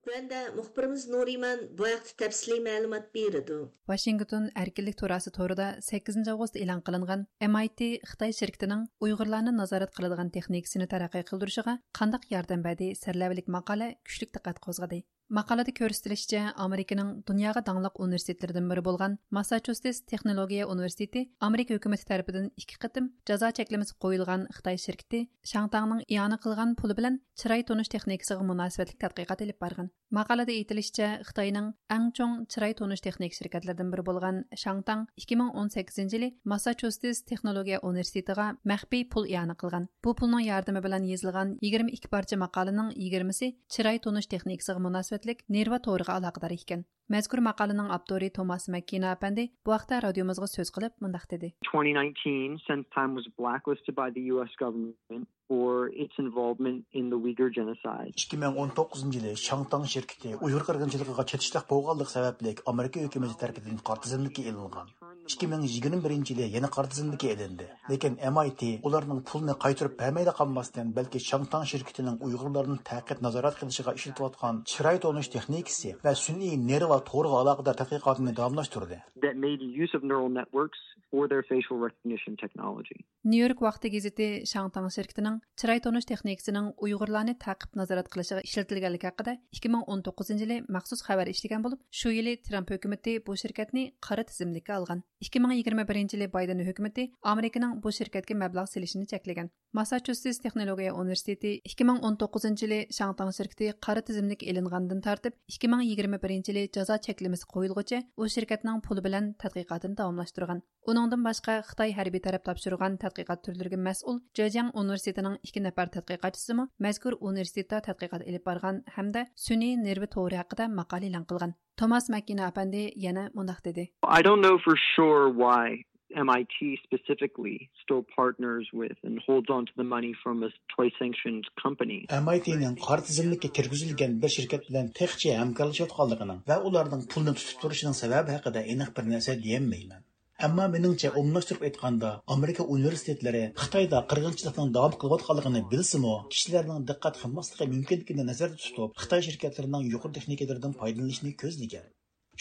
تۆۋەندە مۇخبىرىمىز نۇرىمان بۇ ھەقتە تەپسىلىي مەلۇمات بېرىدۇ. ۋاشىنگتون ئەركىنلىك تۇراسى تورىدا سەككىزىنچى ئاۋغۇست ئېلان قىلىنغان ئەم ئاي تى خىتاي شىركىتىنىڭ ئۇيغۇرلارنى نازارەت قىلىدىغان تېخنىكىسىنى تەرەققىي قىلدۇرۇشىغا قانداق ياردەم بەردى سەرلەۋھىلىك ماقالە كۈچلۈك دىققەت قوزغىدى. ماقالىدە كۆرسىتىلىشىچە، ئامېرىكىنىڭ دۇنياغا داڭلىق ئۇنىۋېرسىتېتلىرىدىن بىرى بولغان ماسساچۇسېتس تېخنولوگىيە ئۇنىۋېرسىتېتى ئامېرىكا ھۆكۈمىتى تەرىپىدىن ئىككى قېتىم جازا چەكلىمىسى قويۇلغان خىتاي شىركىتى شاڭتاڭنىڭ ئىئانە قىلغان پۇلى بىلەن چىراي تونۇش تېخنىكىسىغا مۇناسىۋەتلىك تەتقىقات ئېلىپ بارغان. ماقالىدە ئېيتىلىشىچە، خىتاينىڭ ئەڭ چوڭ چىراي تونۇش تېخنىكا شىركەتلىرىدىن بىرى بولغان شاڭتاڭ ئىككى مىڭ ئون سەككىزىنچى يىلى ماسساچۇسېتس تېخنولوگىيە ئۇنىۋېرسىتېتىغا مەخپىي پۇل ئىئانە قىلغان. بۇ پۇلنىڭ ياردىمى بىلەن يېزىلغان يىگىرمە ئىككى پارچە ماقالىنىڭ يىگىرمىسى چىراي تونۇش تېخنىكىسىغا مۇناسىۋەتلىك نېرۋا تورىغا ئالاقىدار ئىكەن. مەزكۇر ماقالىنىڭ ئاپتورى توماس مەككىنا ئەپەندى بۇ ھەقتە رادىيومىزغا سۆز قىلىپ مۇنداق دېدى. twenty nineteen, Sentime was blacklisted by the U S government for its involvement in the Uyghur genocide. ئىككى مىڭ ئون توققۇزىنچى يىلى شاڭتاڭ شىركىتى ئۇيغۇر قىرغىنچىلىقىغا چېتىشلىق بولغانلىقى سەۋەبلىك ئامېرىكا ھۆكۈمىتى تەرىپىدىن قارا تىزىملىككە ئېلىنغان. ئىككى مىڭ يىگىرمە بىرىنچى يىلى يەنە قارا تىزىملىككە ئېلىندى. لېكىن ئەم ئاي تى ئۇلارنىڭ پۇلنى قايتۇرۇپ بەرمەيلا قالماستىن، بەلكى شاڭتاڭ شىركىتىنىڭ ئۇيغۇرلارنى تەقىپ نازارەت قىلىشىغا ئىشلىتىۋاتقان چىراي تونۇش تېخنىكىسى ۋە سۈنئىي نېرۋا تورىغا ئالاقىدار تەتقىقاتىنى داۋاملاشتۇردى. That made use of neural networks for their facial recognition technology. نيۇ يورك ۋاقتى گېزىتى شاڭتاڭ شىركىتىنىڭ چىراي تونۇش تېخنىكىسىنىڭ ئۇيغۇرلارنى تەقىپ نازارەت قىلىشىغا ئىشلىتىلگەنلىكى ھەققىدە ئىككى مىڭ ئون توققۇزىنچى يىلى مەخسۇس خەۋەر ئىشلىگەن بولۇپ، شۇ يىلى ترامپ ھۆكۈمىتى بۇ شىركەتنى قارا تىزىملىككە ئالغان. ئىككى مىڭ يىگىرمە بىرىنچى يىلى بايدېن ھۆكۈمىتى ئامېرىكىنىڭ بۇ شىركەتكە مەبلەغ سېلىشىنى چەكلىگەن. ماسساچۇسېتس تېخنولوگىيە ئۇنىۋېرسىتېتى ئىككى مىڭ ئون توققۇزىنچى يىلى شاڭتاڭ شىركىتى قارا تىزىملىككە ئېلىنغاندىن تارتىپ، ئىككى مىڭ يىگىرمە بىرىنچى يىلى جازا چەكلىمىسى قويۇلغۇچە ئۇ شىركەتنىڭ پۇلى بىلەن تەتقىقاتىنى داۋاملاشتۇرغان. ئۇنىڭدىن باشقا، خىتاي ھەربىي تەرەپ تاپشۇرغان تەتقىقات تۈرلىرىگە مەسئۇل جېجياڭ ئۇنىۋېرسىتېتىنىڭ ئىككى نەپەر تەتقىقاتچىسىمۇ مەزكۇر ئۇنىۋېرسىتېتتا تەتقىقات ئېلىپ بارغان ھەمدە سۈنئىي نېرۋا تورى ھەققىدە ماقالە ئېلان قىلغان. توماس مەككىنا ئەپەندى يەنە مۇنداق دېدى. I don't know for sure why M I T specifically still partners with and holds on to the money from a twice sanctioned company. ئەم ئاي تىنىڭ قارا تىزىملىككە كىرگۈزۈلگەن بىر شىركەت بىلەن تېخىچە ھەمكارلىشىۋاتقانلىقىنىڭ ۋە ئۇلارنىڭ پۇلنى تۇتۇپ تۇرۇشىنىڭ سەۋەبى ھەققىدە ئېنىق بىر نەرسە دېيەلمەيمەن. ئەمما مېنىڭچە، ئومۇملاشتۇرۇپ ئېيتقاندا، ئامېرىكا ئۇنىۋېرسىتېتلىرى خىتايدا قىرغىنچىلىقنىڭ داۋام قىلىۋاتقانلىقىنى بىلسىمۇ، كىشىلەرنىڭ دىققەت قىلماسلىقى مۇمكىنلىكىنى نەزەردە تۇتۇپ، خىتاي شىركەتلىرىنىڭ يۇقىرى تېخنىكىلىرىدىن پايدىلىنىشنى كۆزلىگەن.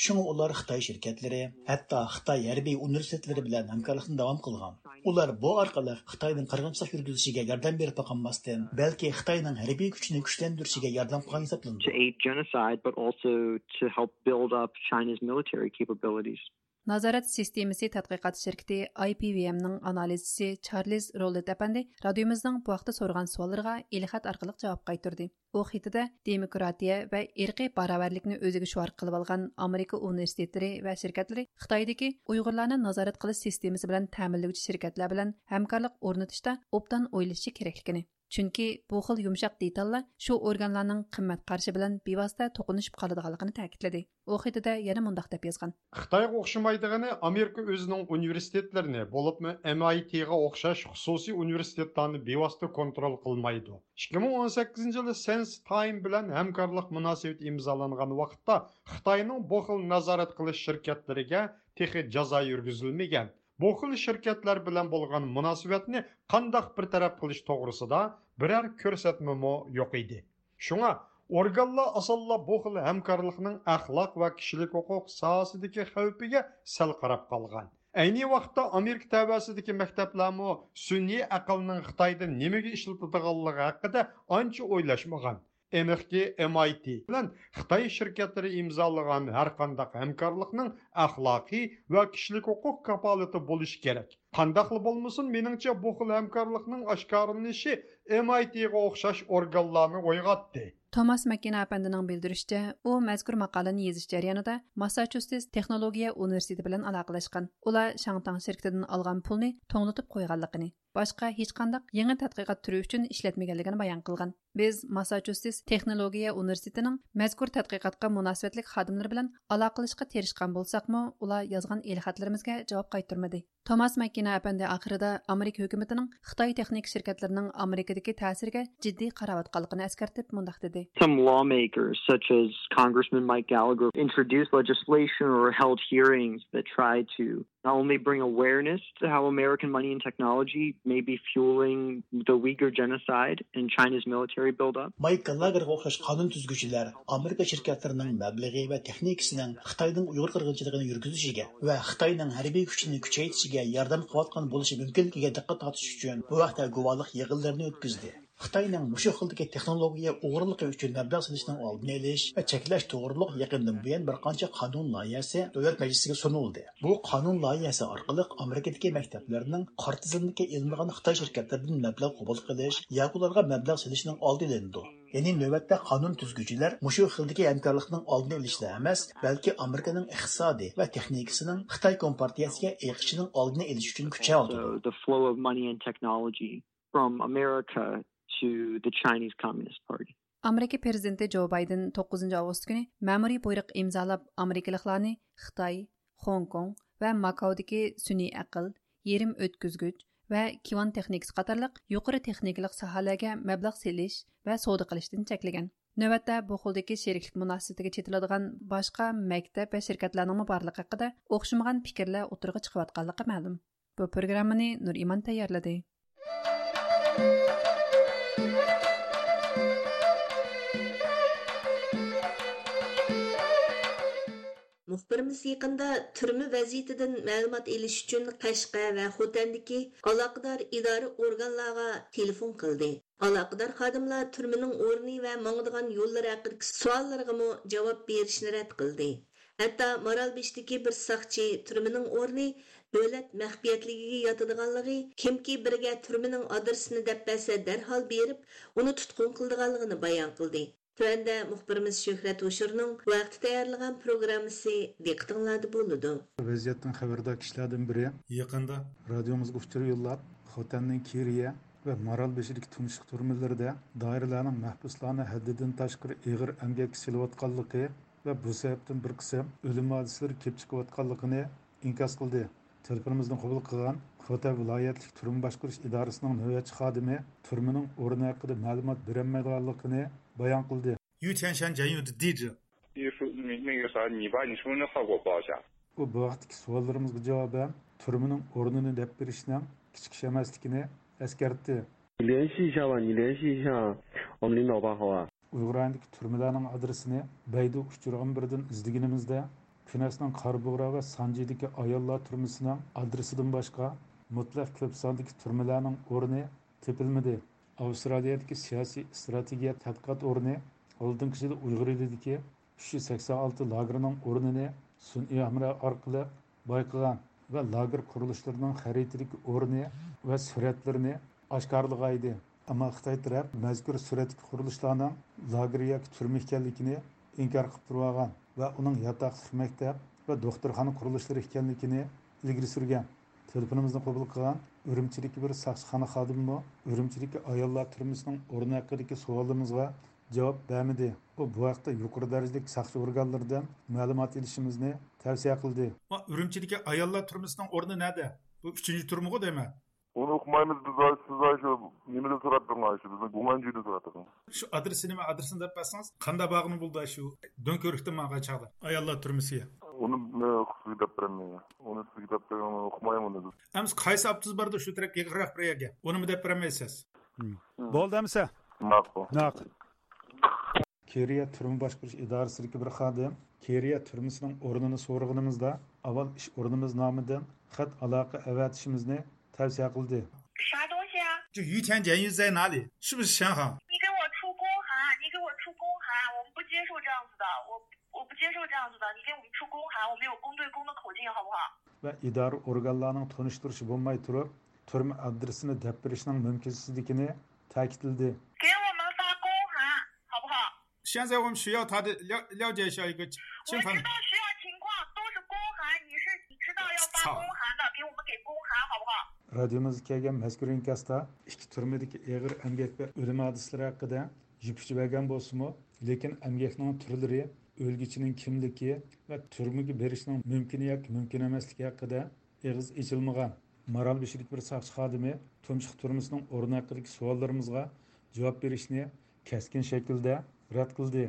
شۇڭا ئۇلار خىتاي شىركەتلىرى، ھەتتا خىتاي ھەربىي ئۇنىۋېرسىتېتلىرى بىلەن ھەمكارلىقنى داۋام قىلغان. ئۇلار بۇ ئارقىلىق خىتاينىڭ قىرغىنچىلىق يۈرگۈزۈشىگە ياردەم بېرىپلا قالماستىن، بەلكى خىتاينىڭ ھەربىي كۈچىنى كۈچلەندۈرۈشىگە ياردەم قىلغان ھېسابلىنىدۇ. To aid genocide, but also to help build up China's military capabilities. نازارەت سىستېمىسى تەتقىقات شىركىتى I P V M نىڭ ئانالىزچىسى چارلىز روللېت ئەپەندى رادىيومىزنىڭ بۇ ھەقتە سورىغان سوئاللىرىغا ئېلخەت ئارقىلىق جاۋاب قايتۇردى. ئۇ خېتىدە دېموكراتىيە ۋە ئىرقىي باراۋەرلىكنى ئۆزىگە شوئار قىلىۋالغان ئامېرىكا ئۇنىۋېرسىتېتلىرى ۋە شىركەتلىرى خىتايدىكى ئۇيغۇرلارنى نازارەت قىلىش سىستېمىسى بىلەن تەمىنلىگۈچى شىركەتلەر بىلەن ھەمكارلىق ئورنىتىشتا ئوبدان ئويلىشىشى كېرەكلىكىنى، چۈنكى بۇ خىل يۇمشاق دېتاللار شۇ ئورگانلارنىڭ قىممەت قارىشى بىلەن بىۋاسىتە توقۇنۇشۇپ قالىدىغانلىقىنى تەكىتلىدى. ئۇ خېتىدە يەنە مۇنداق دەپ يازغان. خىتايغا ئوخشىمايدىغىنى، ئامېرىكا ئۆزىنىڭ ئۇنىۋېرسىتېتلىرىنى، بولۇپمۇ M I T غا ئوخشاش خۇسۇسىي ئۇنىۋېرسىتېتلارنى بىۋاسىتە كونترول قىلمايدۇ. ئىككى مىڭ ئون سەككىزىنچى يىلى سېنس تايم بىلەن ھەمكارلىق مۇناسىۋىتى ئىمزالانغان ۋاقىتتا خىتاينىڭ بۇ خىل نازارەت قىلىش شىركەتلىرىگە تېخى جازا يۈرگۈزۈلمىگەن. بۇ خىل شىركەتلەر بىلەن بولغان مۇناسىۋەتنى قانداق بىر تەرەپ قىلىش توغرىسىدا بىرەر كۆرسەتمىمۇ يوق ئىدى. شۇڭا ئورگانلار ئاسانلا بۇ خىل ھەمكارلىقنىڭ ئەخلاق ۋە كىشىلىك ھوقۇق ساھەسىدىكى خەۋپىگە سەل قاراپ قالغان. ئەينى ۋاقىتتا ئامېرىكا تەۋەسىدىكى مەكتەپلەرمۇ سۈنئىي ئەقىلنىڭ خىتايدا نېمىگە ئىشلىتىدىغانلىقى ھەققىدە ئانچە ئويلاشمىغان. ئېنىقكى، M I T بىلەن خىتاي شىركەتلىرى ئىمزالىغان ھەرقانداق ھەمكارلىقنىڭ ئەخلاقىي ۋە كىشىلىك ھوقۇق كاپالىتى بولۇشى كېرەك. قانداقلا بولمىسۇن، مېنىڭچە، بۇ خىل ھەمكارلىقنىڭ ئاشكارىلىنىشى M I T غا ئوخشاش ئورگانلارنى ئويغاتتى. توماس ماككىنا ئەپەندىنىڭ بىلدۈرۈشىچە، ئۇ مەزكۇر ماقالىنى يېزىش جەريانىدا ماسساچۇسېتس تېخنولوگىيە ئۇنىۋېرسىتېتى بىلەن ئالاقىلەشكەن. ئۇلار شاڭتاڭ شىركىتىدىن ئالغان پۇلنى توڭلىتىپ قويغانلىقىنى، باشقا ھېچقانداق يېڭى تەتقىقات تۈرى ئۈچۈن ئىشلەتمىگەنلىكىنى بايان قىلغان. بىز ماسساچۇسېتس تېخنولوگىيە ئۇنىۋېرسىتېتىنىڭ مەزكۇر تەتقىقاتقا مۇناسىۋەتلىك خادىملىرى بىلەن ئالاقىلىشىشقا تىرىشقان بولساقمۇ، ئۇلار يازغان ئېلخەتلىرىمىزگە جاۋاب قايتۇرمىدى. توماس ماككىنا ئەپەندى ئاخىرىدا ئامېرىكا ھۆكۈمىتىنىڭ خىتاي تېخنىكا شىركەتلىرىنىڭ ئامېرىكىدىكى تەسىرىگە جىددىي قاراۋاتقانلىقىنى ئەسكەرتىپ مۇنداق دېدى. Some lawmakers, such as Congressman Mike Gallagher, introduced legislation or held hearings that tried to not only bring awareness to how American money and technology may be fueling the Uyghur genocide and China's military buildup. مايك گاللاگېرغا ئوخشاش قانۇن تۈزگۈچىلەر ئامېرىكا شىركەتلىرىنىڭ مەبلىغى ۋە تېخنىكىسىنىڭ خىتاينىڭ ئۇيغۇر قىرغىنچىلىقىنى يۈرگۈزۈشىگە ۋە خىتاينىڭ ھەربىي كۈچىنى كۈچەيتىشىگە ياردەم قىلىۋاتقان بولۇشى مۇمكىنلىكىگە دىققەت تارتىش ئۈچۈن بۇ ھەقتە گۇۋاھلىق يىغىنلىرىنى ئۆتكۈزدى. خىتاينىڭ مۇشۇ خىلدىكى تېخنولوگىيە ئوغرىلىقى ئۈچۈن مەبلەغ سېلىشنىڭ ئالدىنى ئېلىش ۋە چەكلەش توغرۇلۇق يېقىندىن بۇيان بىر قانچە قانۇن لايىھەسى دۆلەت مەجلىسىگە سۇنۇلدى. بۇ قانۇن لايىھەسى ئارقىلىق ئامېرىكىدىكى مەكتەپلەرنىڭ قارا تىزىملىككە ئېلىنمىغان خىتاي شىركەتلىرىدىن مەبلەغ قوبۇل قىلىش ياكى ئۇلارغا مەبلەغ سېلىشنىڭ ئالدى ئېلىنىدۇ. يەنى نۆۋەتتە قانۇن تۈزگۈچىلەر مۇشۇ خىلدىكى ھەمكارلىقنىڭ ئالدىنى ئېلىشلا ئەمەس، بەلكى ئامېرىكىنىڭ ئىقتىسادى ۋە تېخنىكىسىنىڭ خىتاي كومپارتىيەسىگە ئېقىشىنىڭ ئالدىنى ئېلىش ئۈچۈن كۈچەۋاتىدۇ. So the flow of money and technology from America to the Chinese Communist Party. ئامېرىكا پىرېزىدېنتى جو بايدېن توققۇزىنچى ئاۋغۇست كۈنى مەمۇرىي بۇيرۇق ئىمزالاپ، ئامېرىكىلىقلارنى خىتاي، خوڭكوڭ ۋە ماكاودىكى سۈنئىي ئەقىل، يېرىم ئۆتكۈزگۈچ ۋە كىۋان تېخنىكىسى قاتارلىق يۇقىرى تېخنىكىلىق ساھەلەرگە مەبلەغ سېلىش ۋە سودا قىلىشتىن چەكلىگەن. نۆۋەتتە بۇ خىلدىكى شېرىكلىك مۇناسىۋىتىگە چېتىلىدىغان باشقا مەكتەپ ۋە شىركەتلەرنىڭمۇ بارلىقى ھەققىدە ئوخشىمىغان پىكىرلەر ئوتتۇرىغا چىقىۋاتقانلىقى مەلۇم. بۇ پروگراممىنى نۇرئىمان تەييارلىدى. مۇخبىرىمىز يېقىندا تۈرمە ۋەزىيىتىدىن مەلۇمات ئېلىش ئۈچۈن قەشقەر ۋە خوتەندىكى ئالاقىدار ئىدارە ئورگانلارغا تېلېفون قىلدى. ئالاقىدار خادىملار تۈرمىنىڭ ئورنى ۋە ماڭىدىغان يوللىرى ھەققىدىكى سوئاللىرىغىمۇ جاۋاب بېرىشنى رەت قىلدى. ھەتتا مارالبېشىدىكى بىر ساقچى تۈرمىنىڭ ئورنى دۆلەت مەخپىيەتلىكىگە ياتىدىغانلىقى، كىمكى بىرىگە تۈرمىنىڭ ئادرېسىنى دەپ بەرسە، دەرھال بېرىپ، ئۇنى تۇتقۇن قىلىدىغانلىقىنى بايان قىلدى. تۆۋەندە مۇخبىرىمىز شۆھرەت ھوشۇرنىڭ بۇ ھەقتە تەييارلىغان پروگراممىسى دىققىتىڭلاردا بولىدۇ. ۋەزىيەتتىن خەۋەردار كىشىلەردىن بىرى يېقىندا رادىيومىزغا ئۇچۇر يوللاپ، خوتەننىڭ كىرىيە ۋە مارالبېشىدىكى تۇمشۇق تۈرمىلىرىدە دائىرىلەرنىڭ مەھبۇسلارنى ھەددىدىن تاشقىرى ئېغىر ئەمگەككە سېلىۋاتقانلىقى ۋە بۇ سەۋەبتىن بىر قىسىم ئۆلۈم ھادىسىلىرى كېلىپ چىقىۋاتقانلىقىنى ئىنكاس قىلدى. تېلېفونىمىزنى قوبۇل قىلغان خوتەن ۋىلايەتلىك تۈرمە باشقۇرۇش ئىدارىسىنىڭ نۆۋەتچى خادىمى تۈرمىنىڭ ئورنى ھەققىدە مەلۇمات بېرەلمەيدىغانلىقىنى بايان قىلدى. 于田山监狱的地址。 你说你那个啥，你把你身份证号给我报一下。 ئۇ بۇ ھەقتىكى سوئاللىرىمىزغا جاۋابەن تۈرمىنىڭ ئورنىنى دەپ بېرىشنىڭ كىچىك ئىش ئەمەسلىكىنى ئەسكەرتتى. 你联系一下吧，你联系一下我们领导吧，好吧？ ئۇيغۇر رايونىدىكى تۈرمىلەرنىڭ ئادرېسىنى بەيدۇ ئۇچۇرىغا بىردىن ئىزدىگىنىمىزدە، كۈنەسنىڭ قارابۇغرا ۋە سانجىدىكى ئاياللار تۈرمىسىنىڭ ئادرېسىدىن باشقا مۇتلەق كۆپ ساندىكى تۈرمىلەرنىڭ ئورنى تېپىلمىدى. ئاۋسترالىيەدىكى سىياسىي ئىستراتېگىيە تەتقىقات ئورنى ئالدىنقى يىلى ئۇيغۇر ئېلىدىكى ئۈچ يۈز سەكسەن ئالتە لاگېرنىڭ ئورنىنى سۈنئىي ھەمراھ ئارقىلىق بايقىغان ۋە لاگېر قۇرۇلۇشلىرىنىڭ خەرىتىدىكى ئورنى ۋە سۈرەتلىرىنى ئاشكارىلىغانىدى. ئەمما خىتاي تەرەپ مەزكۇر سۈرەتتىكى قۇرۇلۇشلارنىڭ لاگېر ياكى تۈرمە ئىكەنلىكىنى ئىنكار قىلىپ تۇرۇۋالغان ۋە ئۇنىڭ ياتاقلىق مەكتەپ ۋە دوختۇرخانا قۇرۇلۇشلىرى ئىكەنلىكىنى ئىلگىرى سۈرگەن. تېلېفونىمىزنى قوبۇل قىلغان ئۈرۈمچىدىكى بىر ساقچىخانا خادىمىمۇ ئۈرۈمچىدىكى ئاياللار تۈرمىسىنىڭ ئورنى ھەققىدىكى سوئالىمىزغا جاۋاب بەرمىدى. ئۇ بۇ ھەقتە يۇقىرى دەرىجىلىك ساقچى ئورگانلىرىدىن مەلۇمات ئېلىشىمىزنى تەۋسىيە قىلدى. ئۇرۇمچىدىكى ئاياللار تۈرمىسىنىڭ ئورنى نەدە؟ بۇ ئۈچىنچى تۈرمىغۇ دەيمەن. ئۇنى ئۇقمايمىز بىز، ئاي، سىز، ئاي، شۇ نېمىدىن سوراپ بېقىڭ، ئاي، شۇ بىزنىڭ گۇڭئەنجۈدىن سوراپ بېقىڭ. شۇ ئادرېسى نېمە، ئادرېسىنى دەپ بەرسىڭىز، قانداق بارغىنى بولىدۇ، شۇ دۆڭكۆۋرۈكتىن ماڭغان چاغدا ئاياللار تۈرمىسىگە. ئۇنى، ئە، سىزگە دەپ بېرەلمەيمەن. ئۇنى سىزگە دەپ بېرىڭ، ئۇقمايمەن ئۇنى بىز. ئەمىسە قايسى ئاپتوبۇس باردا شۇ تەرەپكە يېقىنراق بىر يەرگە؟ ئۇنىمۇ دەپ بېرەلمەيسىز. مم. بولدى ئەمىسە. ماقۇل. ماقۇل. كېرىيە تۈرمە باشقۇرۇش ئىدارىسىدىكى بىر خادىم كېرىيە تۈرمىسىنىڭ ئورنىنى سورىغىنىمىزدا، ئاۋۋال ئىش ئورنىمىز نامىدىن خەت ئالاقە ئەۋەتىشىمىزنى تەۋسىيە قىلدى. 啥东西啊？ 就于田监狱在哪里？是不是沈航？ 你给我出公函，你给我出公函，我们不接受这样子的，我我不接受这样子的，你给我们出公函，我们有公对公的口径，好不好？ ۋە ئىدارە ئورگانلارنىڭ تونۇشتۇرۇشى بولماي تۇرۇپ، تۈرمە ئادرېسىنى دەپ بېرىشنىڭ مۇمكىنسىزلىكىنى تەكىتلىدى. 给我们发公函，好不好？ 现在我们需要他的了了解一下一个情况。 我知道需要情况，都是公函，你是你知道要发公函的，给我们给公函，好不好？ رادىيومىزغا كەلگەن مەزكۇر ئىنكاستا ئىككى تۈرمىدىكى ئېغىر ئەمگەك ۋە ئۆلۈم ھادىسىلىرى ھەققىدە يىپ ئۇچى بەرگەن بولسىمۇ، لېكىن ئەمگەكنىڭ تۈرلىرى، ئۆلگۈچىنىڭ كىملىكى ۋە تۈرمىگە بېرىشنىڭ مۇمكىن ياكى مۇمكىن ئەمەسلىكى ھەققىدە ئېغىز ئېچىلمىغان. مارالبېشىدىكى بىر ساقچى خادىمى تۇمشۇق تۈرمىسىنىڭ ئورنى ھەققىدىكى سوئاللىرىمىزغا جاۋاب بېرىشنى كەسكىن شەكىلدە رەت قىلدى.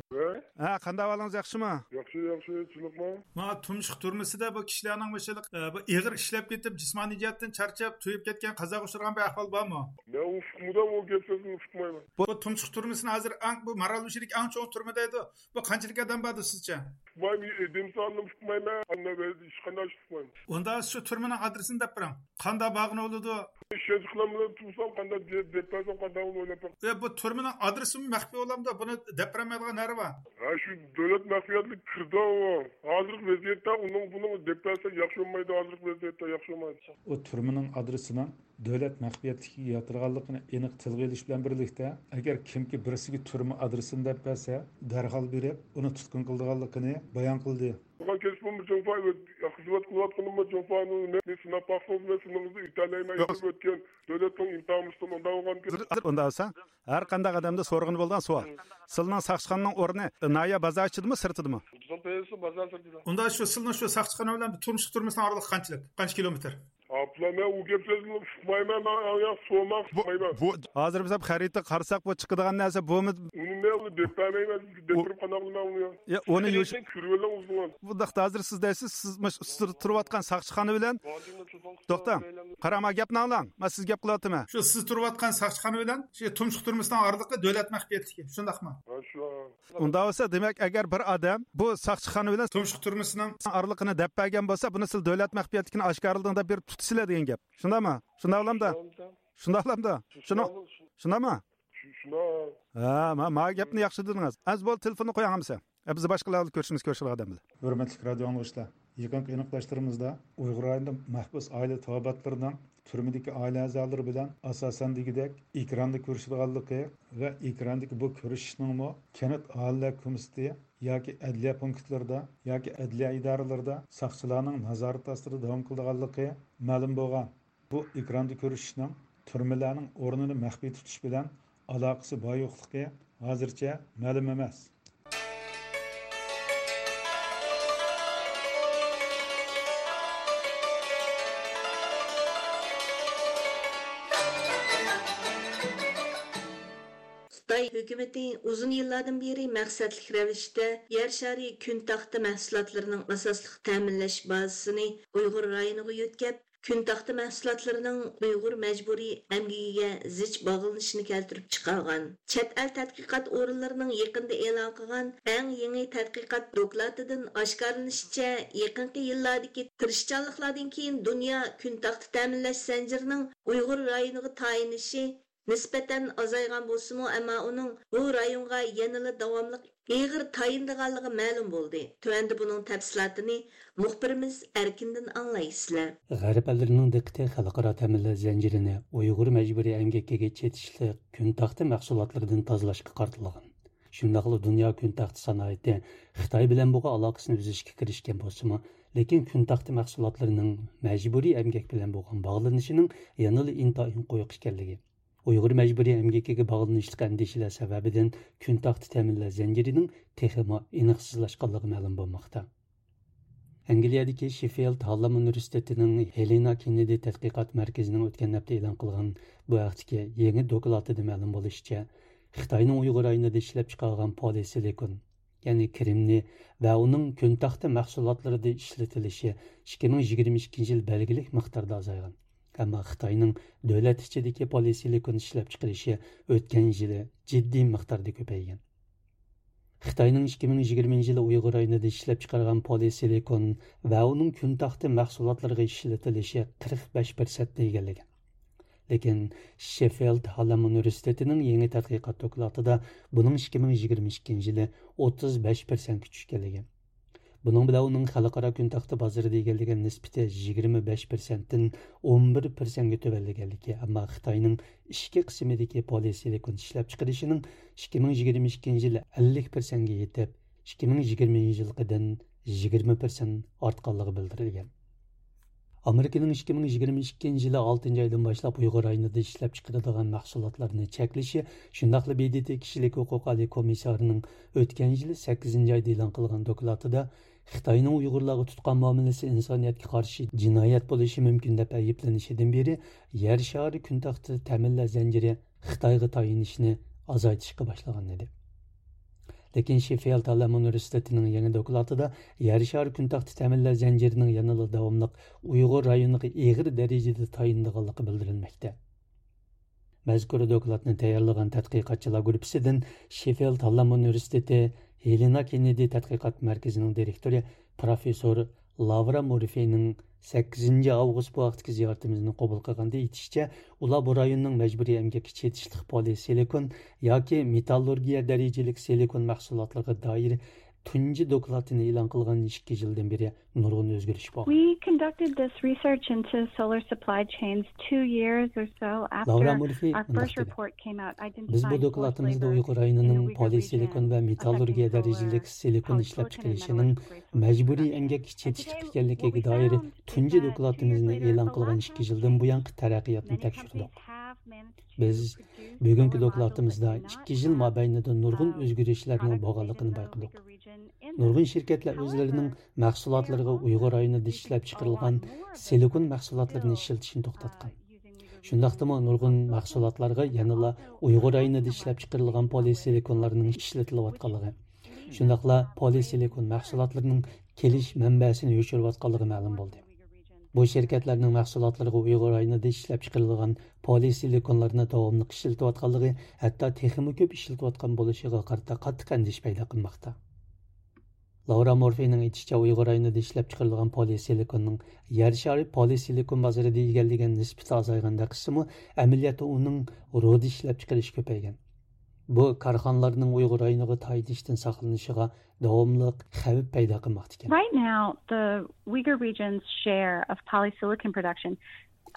ھە، قانداق ئەھۋالىڭىز، ياخشىمۇ؟ ياخشى، ياخشى، تۇنۇقمۇ؟ ما تۇمشۇق تۈرمىسىدە بۇ كىشىلەرنىڭ مۇشۇلۇق، ئە، بۇ ئېغىر ئىشلەپ كېتىپ، جىسمانىي جەھەتتىن چارچاپ، تويۇپ كەتكەن قازاغا ئۇچرىغان بىر ئەھۋال بارمۇ؟ مەن ئۇنى ئۇقمىدىم، ئۇ گەپ سۆزنى ئۇقمايمەن. بۇ تۇمشۇق تۈرمىسىنى ھازىر ئەڭ، بۇ مارالبېشىدىكى ئەڭ چوڭ تۈرمە دەيدۇ. بۇ قانچىلىك ئادەم باردۇ سىزچە؟ ئۇقمايمەن، ئادەم سانىنى ئۇقمايمەن، ئەمما ھېچقانداق ئىش ئۇقمايمەن. ئۇندا شۇ تۈرمىنىڭ ئادرېسىنى دەپ بېرىڭ. قانداق بارغىنى بولىدۇ؟ ئىشەنچ قىلالمىدىم، تۇرسام قانداق دەپ، دەپ بەرسەم قانداق بولىدۇ ئويلاپ بېقىڭ. ئە، بۇ تۈرمىنىڭ ئادرېسىمۇ مەخپىي بولامدۇ؟ بۇنى دەپ بېرەلمەيدىغان نەرى بار؟ ھە، شۇ دۆلەت مەخپىيەتلىك كىردى ئۇ. ھازىرقى ۋەزىيەتتە ئۇنىڭ بۇنىڭ دەپ بەرسەك ياخشى بولمايدۇ، ھازىرقى ۋەزىيەتتە ياخشى بولمايدۇ. ئۇ تۈرمىنىڭ ئادرېسىنىڭ دۆلەت مەخپىيەتلىكىگە ياتىدىغانلىقىنى ئېنىق تىلغا ئېلىش بىلەن بىرلىكتە، ئەگەر كىمكى بىرسىگە تۈرمە ئادرېسىنى دەپ بەرسە، دەرھال بېرىپ، ئۇنى تۇتقۇن قىلىدىغانلىقىنى بايان قىلدى. قىلغان كەسپىممۇ جۇڭفا، خىزمەت قىلىۋاتقىنىممۇ جۇڭفانىڭ نەقلى سىناپ باقسىڭىز، مەن سىنىڭىزنى ئۆتەلەيمەن. يوق. ئۆتۈپ ئۆتكەن دۆلەتنىڭ ئىمتىھانىمىزدىن ئۇنداق بولغان. ھازىر، ھازىر ئۇنداق بولسا، ھەر قانداق ئادەمدە سورىغىلى بولىدىغان سوئال. سىلىنىڭ ساقچىخانىنىڭ ئورنى ناھىيە بازار ئىچىدىمۇ، سىرتىدىمۇ؟ بۇزۇل پېيىسى بازار سىرتىدا. ئۇندا شۇ سىلىنىڭ شۇ ساقچىخانا بىلەن تۇمشۇق تۈرمىسىنىڭ ئارىلىقى قانچىلىك؟ قانچە كىلومېتىر؟ ئاپلا، مەن ئۇ گەپ سۆزنى ئۇقمايمەن، مەن ئاڭ ياق سورىماق بۇ، ئۇقمايمەن. بۇ ھازىر بىز خەرىتىگە قارىساق، بۇ چىقىدىغان نەرسە بۇمۇ؟ ئۇنى مەن ئۇنى دەپ بەرمەيمەن، سىزگە دەپ بۇ، بېرىپ قانداق قىلىمەن ئۇنى؟ يا، ئۇنى يۇش-، خەرىتىنى كۆرۈۋېلىڭ ئۆزىڭىز. بۇنداقتا ھازىر سىز دەيسىز، سىز مۇش-، سىز تۇرۇۋاتقان ساقچىخانا بىلەن توختاڭ، قاراڭ، مانا گەپنى ئاڭلاڭ. مەن سىز گەپ قىلىۋاتىمەن. شۇ سىز تۇرۇۋاتقان ساقچىخانا بىلەن شۇ تۇمشۇق تۈرمىسىنىڭ ئارىلىقى دۆلەت مەخپىيەتلىكى، شۇنداقمۇ؟ ھە، شۇ. ئۇنداق بولسا، دېمەك، ئەگەر بىر ئادەم بۇ ساقچىخانا بىلەن تۇمشۇق تۈرمىسىنىڭ ئارىلىقىنى دەپ بەرگەن بولسا، بۇنى سىز دۆلەت مەخپىيەتلىكىنى ئاشكارىلىدىڭ دەپ بېرىپ تۇتىسىلەر دېگەن گەپ. شۇنداقمۇ؟ شۇنداق بولامدا؟ شۇنداق بولامدا؟ شۇنىڭ، شۇنداقمۇ؟ شۇ-، شۇنداق. ھە، ما-، ما گەپنى ياخشى دېدىڭىز. ئەمىسە بولدى، تېلېفوننى قويۇڭ ئەمىسە. ئە، بىز باشقىلار بىلەن كۆرۈشىمىز، كۆرۈشىدىغان ئادەم بىلەن. ھۆرمەتلىك رادىيو ئاڭلىغۇچىلار، يېقىنقى ئېنىقلاشلىرىمىزدا ئۇيغۇر رايونىدا مەھبۇس ئائىلە تاۋابىئاتلىرىنىڭ تۈرمىدىكى ئائىلە ئەزالىرى بىلەن ئاساسەن دېگۈدەك ئېكراندا كۆرۈشىدىغانلىقى ۋە ئېكراندىكى بۇ كۆرۈشۈشنىڭمۇ كەنت ئاھالىلەر كومىتېتى ياكى ئەدلىيە پونكىتلىرىدا ياكى ئەدلىيە ئىدارىلىرىدا ساقچىلارنىڭ نازارىتى ئاستىدا داۋام قىلىدىغانلىقى مەلۇم بولغان. بۇ ئېكراندا كۆرۈشۈشنىڭ تۈرمىلەرنىڭ ئورنىنى مەخپىي تۇتۇش بىلەن ئالاقىسى بار-يوقلۇقى ھازىرچە مەلۇم ئەمەس. ھۆكۈمىتى ئۇزۇن يىللاردىن بېرى مەقسەتلىك رەۋىشتە يەر شارى كۈن تاختا مەھسۇلاتلىرىنىڭ ئاساسلىق تەمىنلەش بازىسىنى ئۇيغۇر رايونىغا يۆتكەپ، كۈن تاختا مەھسۇلاتلىرىنىڭ ئۇيغۇر مەجبۇرىي ئەمگىكىگە زىچ باغلىنىشىنى كەلتۈرۈپ چىقارغان. چەت ئەل تەتقىقات ئورۇنلىرىنىڭ يېقىندا ئېلان قىلغان ئەڭ يېڭى تەتقىقات دوكلاتىدىن ئاشكارىلىنىشىچە، يېقىنقى يىللاردىكى تىرىشچانلىقلاردىن كېيىن دۇنيا كۈن تاختا تەمىنلەش زەنجىرىنىڭ ئۇيغۇر رايونىغا تايىنىشى نىسبەتەن ئازايغان بولسىمۇ، ئەمما ئۇنىڭ بۇ رايونغا يەنىلا داۋاملىق ئېغىر تايىنىدىغانلىقى مەلۇم بولدى. تۆۋەندە بۇنىڭ تەپسىلاتىنى مۇخبىرىمىز ئەركىندىن ئاڭلايسىلەر. غەرب ئەللىرىنىڭ دىققىتى خەلقئارا تەمىنلەش زەنجىرىنى ئۇيغۇر مەجبۇرىي ئەمگىكىگە چېتىشلىق كۈن تاختا مەھسۇلاتلىرىدىن تازىلاشقا قارىتىلغان. شۇنداقلا دۇنيا كۈن تاختا سانائىتى خىتاي بىلەن بولغان ئالاقىسىنى ئۈزۈشكە كىرىشكەن بولسىمۇ، لېكىن كۈن تاختا مەھسۇلاتلىرىنىڭ مەجبۇرىي ئەمگەك بىلەن بولغان باغلىنىشىنىڭ يەنىلا ئىنتايىن قويۇق ئىكەنلىكى، ئۇيغۇر مەجبۇرىي ئەمگىكىگە باغلىنىشلىق ئەندىشىلەر سەۋەبىدىن كۈن تاختا تەمىنلەش زەنجىرىنىڭ تېخىمۇ ئېنىقسىزلاشقانلىقى مەلۇم بولماقتا. ئەنگلىيەدىكى شېففىلد ھاللام ئۇنىۋېرسىتېتىنىڭ ھېلېنا كېننېدى تەتقىقات مەركىزىنىڭ ئۆتكەن ھەپتە ئېلان قىلغان بۇ ھەقتىكى يېڭى دوكلاتىدا مەلۇم بولۇشىچە، خىتاينىڭ ئۇيغۇر رايونىدا ئىشلەپچىقارغان پولىسىلىكون، يەنى كرېمنىي ۋە ئۇنىڭ كۈن تاختا مەھسۇلاتلىرىدا ئىشلىتىلىشى ئىككى مىڭ يىگىرمە ئىككىنچى يىل بەلگىلىك مىقداردا ئازايغان. ئەمما خىتاينىڭ دۆلەت ئىچىدىكى پولىسىلىكون ئىشلەپچىقىرىشى ئۆتكەن يىلى جىددىي مىقداردا كۆپەيگەن. خىتاينىڭ ئىككى مىڭ يىگىرمىنچى يىلى ئۇيغۇر رايونىدا ئىشلەپچىقارغان پولىسىلىكون ۋە ئۇنىڭ كۈن تاختا مەھسۇلاتلىرىغا ئىشلىتىلىشى قىرىق بەش پىرسەنتنى ئىگىلىگەن. لېكىن شېففىلد ھاللام ئۇنىۋېرسىتېتىنىڭ يېڭى تەتقىقات دوكلاتىدا بۇنىڭ ئىككى مىڭ يىگىرمە ئىككىنچى يىلى ئوتتۇز بەش پىرسەنتكە چۈشكەنلىكى، بۇنىڭ بىلەن ئۇنىڭ خەلقئارا كۈن تاختا بازىرىدا ئىگىلىگەن نىسبىتى يىگىرمە بەش پىرسەنتتىن ئون بىر پىرسەنتكە تۆۋەنلىگەنلىكى، ئەمما خىتاينىڭ ئىچكى قىسمىدىكى پولىسىلىكون ئىشلەپچىقىرىشىنىڭ ئىككى مىڭ يىگىرمە ئىككىنچى يىلى ئەللىك پىرسەنتكە يېتىپ، ئىككى مىڭ يىگىرمە يىلقىدىن يىگىرمە پىرسەنت ئارتقانلىقى بىلدۈرۈلگەن. ئامېرىكىنىڭ ئىككى مىڭ يىگىرمە ئىككىنچى يىلى ئالتىنچى ئايدىن باشلاپ ئۇيغۇر رايونىدا ئىشلەپچىقىرىدىغان مەھسۇلاتلارنى چەكلىشى، شۇنداقلا ب د ت كىشىلىك ھوقۇق ئالىي كومىسسارىنىڭ ئۆتكەن يىلى سەككىزىنچى ئايدا ئېلان قىلغان دوكلاتىدا خىتاينىڭ ئۇيغۇرلارغا تۇتقان مۇئامىلىسى ئىنسانىيەتكە قارشى جىنايەت بولۇشى مۇمكىن دەپ ئەيىبلىنىشىدىن بېرى، يەر شارى كۈن تاختا تەمىنلەش زەنجىرى خىتايغا تايىنىشنى ئازايتىشقا باشلىغان ئىدى. لېكىن شېففىلد ھاللام ئۇنىۋېرسىتېتىنىڭ يېڭى دوكلاتىدا يەر شارى كۈن تاختا تەمىنلەش زەنجىرىنىڭ يەنىلا داۋاملىق ئۇيغۇر رايونىغا ئېغىر دەرىجىدە تايىنىدىغانلىقى بىلدۈرۈلمەكتە. مەزكۇر دوكلاتنى تەييارلىغان تەتقىقاتچىلار گۇرۇپپىسىدىن شېففىلد ھاللام ئۇنىۋېرسىتېتى ھېلېنا كېننېدى تەتقىقات مەركىزىنىڭ دىرېكتورى پروفېسسور لاۋرا مورفېينىڭ سەككىزىنچى ئاۋغۇست بۇ ھەقتىكى زىيارىتىمىزنى قوبۇل قىلغاندا ئېيتىشىچە، ئۇلار بۇ رايوننىڭ مەجبۇرىي ئەمگەككە چېتىشلىق پولىسىلىكون ياكى مېتاللۇرگىيە دەرىجىلىك سىلىكون مەھسۇلاتلىرىغا دائىر تۇنجى دوكلاتىنى ئېلان قىلغان ئىككى يىلدىن بېرى نۇرغۇن ئۆزگىرىش بولغان. We conducted this research into solar supply chains two years or so after our first report came out identifying forced labor in the Uyghur region affecting solar, affecting solar production, which was a little bit of a surprise. And today, what we found was that two years later, a lot of these labor forces have managed to produce more. بىز بۈگۈنكى دوكلاتىمىزدا ئىككى يىل مابەينىدە نۇرغۇن ئۆزگىرىشلەرنىڭ بولغانلىقىنى بايقىدۇق. نۇرغۇن شىركەتلەر ئۆزلىرىنىڭ مەھسۇلاتلىرىغا ئۇيغۇر رايونىدا ئىشلەپچىقىرىلغان سىلىكون مەھسۇلاتلىرىنى ئىشلىتىشنى توختاتقان. شۇنداقتىمۇ نۇرغۇن مەھسۇلاتلارغا يەنىلا ئۇيغۇر رايونىدا ئىشلەپچىقىرىلغان پولىسىلىكونلارنىڭ ئىشلىتىلىۋاتقانلىقى، شۇنداقلا پولىسىلىكون مەھسۇلاتلىرىنىڭ كېلىش مەنبەسىنى يوشۇرۇۋاتقانلىقى مەلۇم بولدى. بۇ شىركەتلەرنىڭ مەھسۇلاتلىرىغا ئۇيغۇر رايونىدا ئىشلەپچىقىرىلغان پولىسىلىكونلارنى داۋاملىق ئىشلىتىۋاتقانلىقى، ھەتتا تېخىمۇ كۆپ ئىشلىتىۋاتقان بولۇشىغا قارىتا قاتتىق ئەندىشە پەيدا قىلماقتا. لاۋرا مورفېينىڭ ئېيتىشىچە، ئۇيغۇر رايونىدا ئىشلەپچىقىرىلغان پولىسىلىكوننىڭ يەر شارى پولىسىلىكون بازىرىدا ئىگىلىگەن نىسبىتى ئازايغاندەك قىلسىمۇ، ئەمەلىيەتتە ئۇنىڭ رۇدا ئىشلەپچىقىرىشى كۆپەيگەن. بۇ كارخانىلارنىڭ ئۇيغۇر رايونىغا تايىنىشتىن ساقلىنىشىغا داۋاملىق خەۋپ پەيدا قىلماقتا ئىكەن. Right now, the Uyghur region's share of polysilicon production,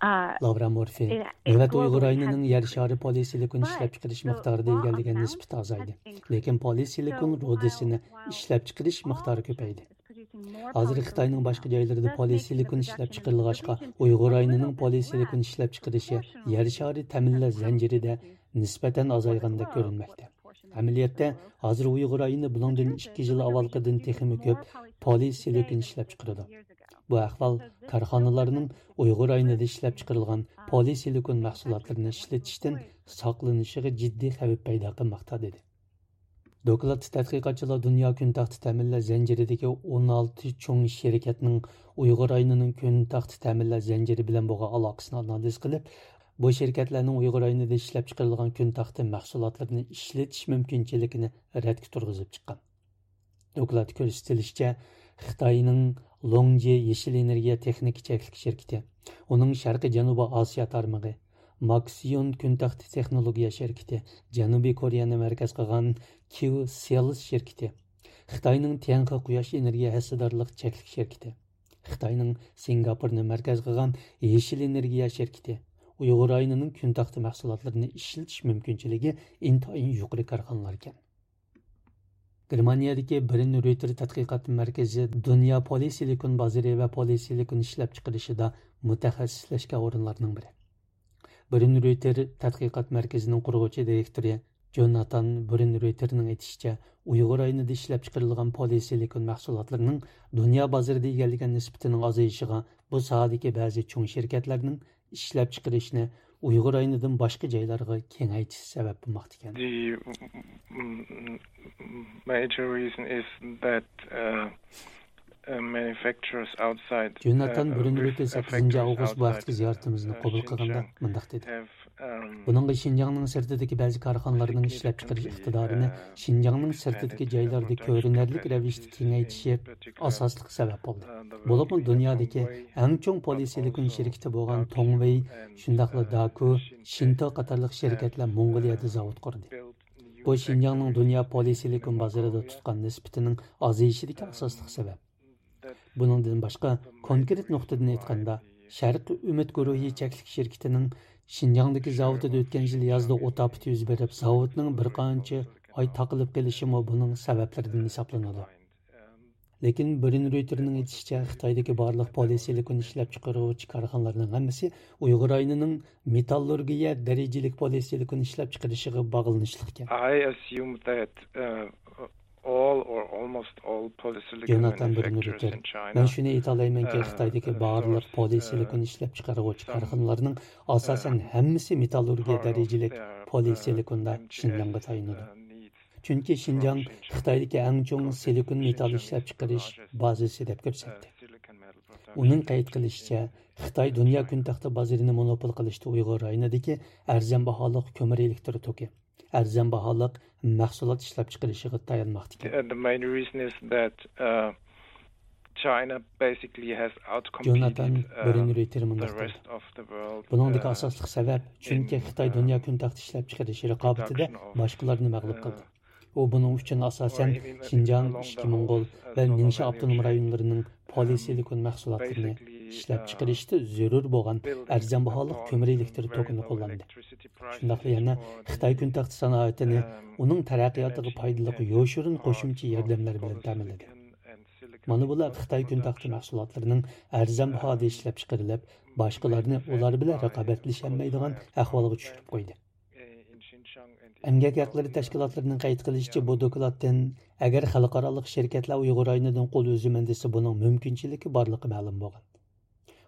uh, لاۋرا مورفېي، نۆۋەتتە ئۇيغۇر رايونىنىڭ يەر شارى پولىسىلىكون ئىشلەپچىقىرىش مىقدارىدا ئىگىلىگەن نىسبىتى ئازايدى. لېكىن پولىسىلىكون رۇدىسىنى ئىشلەپچىقىرىش مىقدارى كۆپەيدى. ھازىر خىتاينىڭ باشقا جايلىرىدا پولىسىلىكون ئىشلەپچىقىرىلغاچقا، ئۇيغۇر رايونىنىڭ پولىسىلىكون ئىشلەپچىقىرىشى يەر شارى تەمىنلەش زەنجىرىدە نىسبەتەن ئازايغاندەك كۆرۈنمەكتە. ئەمەلىيەتتە، ھازىر ئۇيغۇر رايونى بۇنىڭدىن ئىككى يىل ئاۋۋالقىدىن تېخىمۇ كۆپ پولىسىلىكون ئىشلەپچىقىرىدۇ. بۇ ئەھۋال كارخانىلارنىڭ ئۇيغۇر رايونىدا ئىشلەپچىقىرىلغان پولىسىلىكون مەھسۇلاتلىرىنى ئىشلىتىشتىن ساقلىنىشىغا جىددىي خەۋپ پەيدا قىلماقتا، دېدى. دوكلاتتا تەتقىقاتچىلار دۇنيا كۈن تەختە تەمىنلەش زەنجىرىدىكى ئون ئالتە چوڭ شىركەتنىڭ ئۇيغۇر رايونىنىڭ كۈن تەختە تەمىنلەش زەنجىرى بىلەن بولغان ئالاقىسىنى ئانالىز قىلىپ، بۇ شىركەتلەرنىڭ ئۇيغۇر رايونىدا ئىشلەپچىقىرىلغان كۈن تەختە مەھسۇلاتلىرىنى ئىشلىتىش مۇمكىنچىلىكىنى رەتكە تۇرغۇزۇپ چىققان. دوكلاتتا كۆرسىتىلىشىچە، خىتاينىڭ لوڭجې يېشىل ئېنېرگىيە تېخنىكا چەكلىك شىركىتى، ئۇنىڭ شەرقىي جەنۇبىي ئاسىيا تارمىقى، ماكسىيون كۈن تەختە تېخنولوگىيە شىركىتى، جەنۇبىي كورېيەنى مەركەز قىلغان كيۇ سېلز شىركىتى، خىتاينىڭ تيەنخې قۇياش ئېنېرگىيە ھەسسىدارلىق چەكلىك شىركىتى، خىتاينىڭ سىنگاپورنى مەركەز قىلغان يېشىل ئېنېرگىيە شىركىتى ئۇيغۇر رايونىنىڭ كۈن تەختە مەھسۇلاتلىرىنى ئىشلىتىش مۇمكىنچىلىكى ئىنتايىن يۇقىرى كارخانىلار ئىكەن. گېرمانىيەدىكى برىن رويتېر تەتقىقات مەركىزى دۇنيا پولىسىلىكون بازىرى ۋە پولىسىلىكون ئىشلەپچىقىرىشىدا مۇتەخەسسىسلەشكەن ئورۇنلارنىڭ بىرى. برىن رويتېر تەتقىقات مەركىزىنىڭ قۇرغۇچى دىرېكتورى جوناتان برىن رويتېرنىڭ ئېيتىشىچە، ئۇيغۇر رايونىدا ئىشلەپچىقىرىلغان پولىسىلىكون مەھسۇلاتلىرىنىڭ دۇنيا بازىرىدا ئىگىلىگەن نىسبىتىنىڭ ئازىيىشىغا بۇ ساھەدىكى بەزى چوڭ شىركەتلەرنىڭ ئىشلەپچىقىرىشنى ئۇيغۇر رايونىدىن باشقا جايلارغا كېڭەيتىشى سەۋەب بولماقتا ئىكەن. The mm, mm, major reason is that uh, uh, manufacturers outside جوناتان uh, برىن with رويتېر سەككىزىنچى factories ئاۋغۇست بۇ ھەقتىكى outside زىيارىتىمىزنى uh, قوبۇل قىلغاندا Xinjiang مۇنداق دېدى. Have um, بۇنىڭغا شىنجاڭنىڭ سىرتىدىكى بەزى كارخانىلارنىڭ ئىشلەپچىقىرىش ئىقتىدارىنى شىنجاڭنىڭ سىرتىدىكى جايلاردا كۆرۈنەرلىك رەۋىشتە كېڭەيتىشى ئاساسلىق سەۋەب بولدى. بولۇپمۇ دۇنيادىكى ئەڭ چوڭ پولىسىلىكون شىركىتى بولغان توڭۋېي، شۇنداقلا داكۇ، شىنتو قاتارلىق شىركەتلەر موڭغۇلىيەدە زاۋۇت قۇردى. بۇ شىنجاڭنىڭ دۇنيا پولىسىلىكون بازىرىدا تۇتقان نىسبىتىنىڭ ئازىيىشىدىكى ئاساسلىق سەۋەب. بۇنىڭدىن باشقا، كونكرېت نۇقتىدىن ئېيتقاندا، شەرقىي ئۈمىد گۇرۇھى چەكلىك شىركىتىنىڭ شىنجاڭدىكى زاۋۇتىدا ئۆتكەن يىل يازدا ئوت ئاپىتى يۈز بېرىپ، زاۋۇتنىڭ بىر قانچە ئاي تاقىلىپ قېلىشىمۇ بۇنىڭ سەۋەبلىرىدىن ھېسابلىنىدۇ. لېكىن برىن رويتېرنىڭ ئېيتىشىچە، خىتايدىكى بارلىق پولىسىلىكون ئىشلەپچىقارغۇچى كارخانىلارنىڭ ھەممىسى ئۇيغۇر رايونىنىڭ مېتاللۇرگىيە دەرىجىلىك پولىسىلىكون ئىشلەپچىقىرىشىغا باغلىنىشلىق ئىكەن. I assume that uh, all or almost all polysilicon جوناتان برىن manufacturers رويتېر، in China مەن شۇنى ئېيتالايمەنكى، uh, خىتايدىكى بارلىق source پولىسىلىكون uh, ئىشلەپچىقارغۇچى some كارخانىلارنىڭ ئاساسەن uh, ھەممىسى مېتاللۇرگىيە part of دەرىجىلىك their پولىسىلىكوندا uh, M J S شىنجاڭغا تايىنىدۇ. uh, needs چۈنكى شىنجاڭ خىتايدىكى ئەڭ چوڭ سىلىكون مېتال ئىشلەپچىقىرىش بازىسى دەپ كۆرسەتتى. ئۇنىڭ قەيت قىلىشىچە، خىتاي دۇنيا كۈن تەختە بازىرىنى مونوپول قىلىشتا ئۇيغۇر رايونىدىكى ئەرزان باھالىق كۆمۈر ئېلېكتر توكى، ئەرزان باھالىق مەھسۇلات ئىشلەپچىقىرىشىغا تايانماقتا ئىكەن. Uh, the main reason is that uh, China basically has جوناتان outcompeted uh, بىرىن رويتېر the مۇنداق دېدى. Rest of the world. بۇنىڭدىكى uh, ئاساسلىق سەۋەب، چۈنكى in خىتاي دۇنيا uh, كۈن تەختە ئىشلەپچىقىرىشى رىقابىتىدە production of باشقىلارنى مەغلۇپ uh, قىلدى. ئۇ بۇنىڭ ئۈچۈن ئاساسەن شىنجاڭ، ئىچكى موڭغۇل ۋە نىڭشا ئاپتونوم رايونلىرىنىڭ پولىسىلىكون مەھسۇلاتلىرىنى ئىشلەپچىقىرىشتا زۆرۈر بولغان ئەرزان باھالىق كۆمۈر ئېلېكتر توكىنى قوللاندى. شۇنداقلا يەنە خىتاي كۈن تەختە سانائىتىنى ئۇنىڭ تەرەققىياتىغا پايدىلىق يوشۇرۇن قوشۇمچە ياردەملەر بىلەن تەمىنلىدى. مانا بۇلار خىتاي كۈن تەختە مەھسۇلاتلىرىنىڭ ئەرزان باھادا ئىشلەپچىقىرىلىپ، باشقىلارنى ئۇلار بىلەن رىقابەتلىشەلمەيدىغان ئەھۋالغا چۈشۈرۈپ قويدى. ئەمگەك ھەقلىرى تەشكىلاتلىرىنىڭ قەيت قىلىشىچە، بۇ دوكلاتتىن، ئەگەر خەلقئارالىق شىركەتلەر ئۇيغۇر رايونىدىن قول ئۈزىمەن دېسە، بۇنىڭ مۇمكىنچىلىكى بارلىقى مەلۇم بولغان.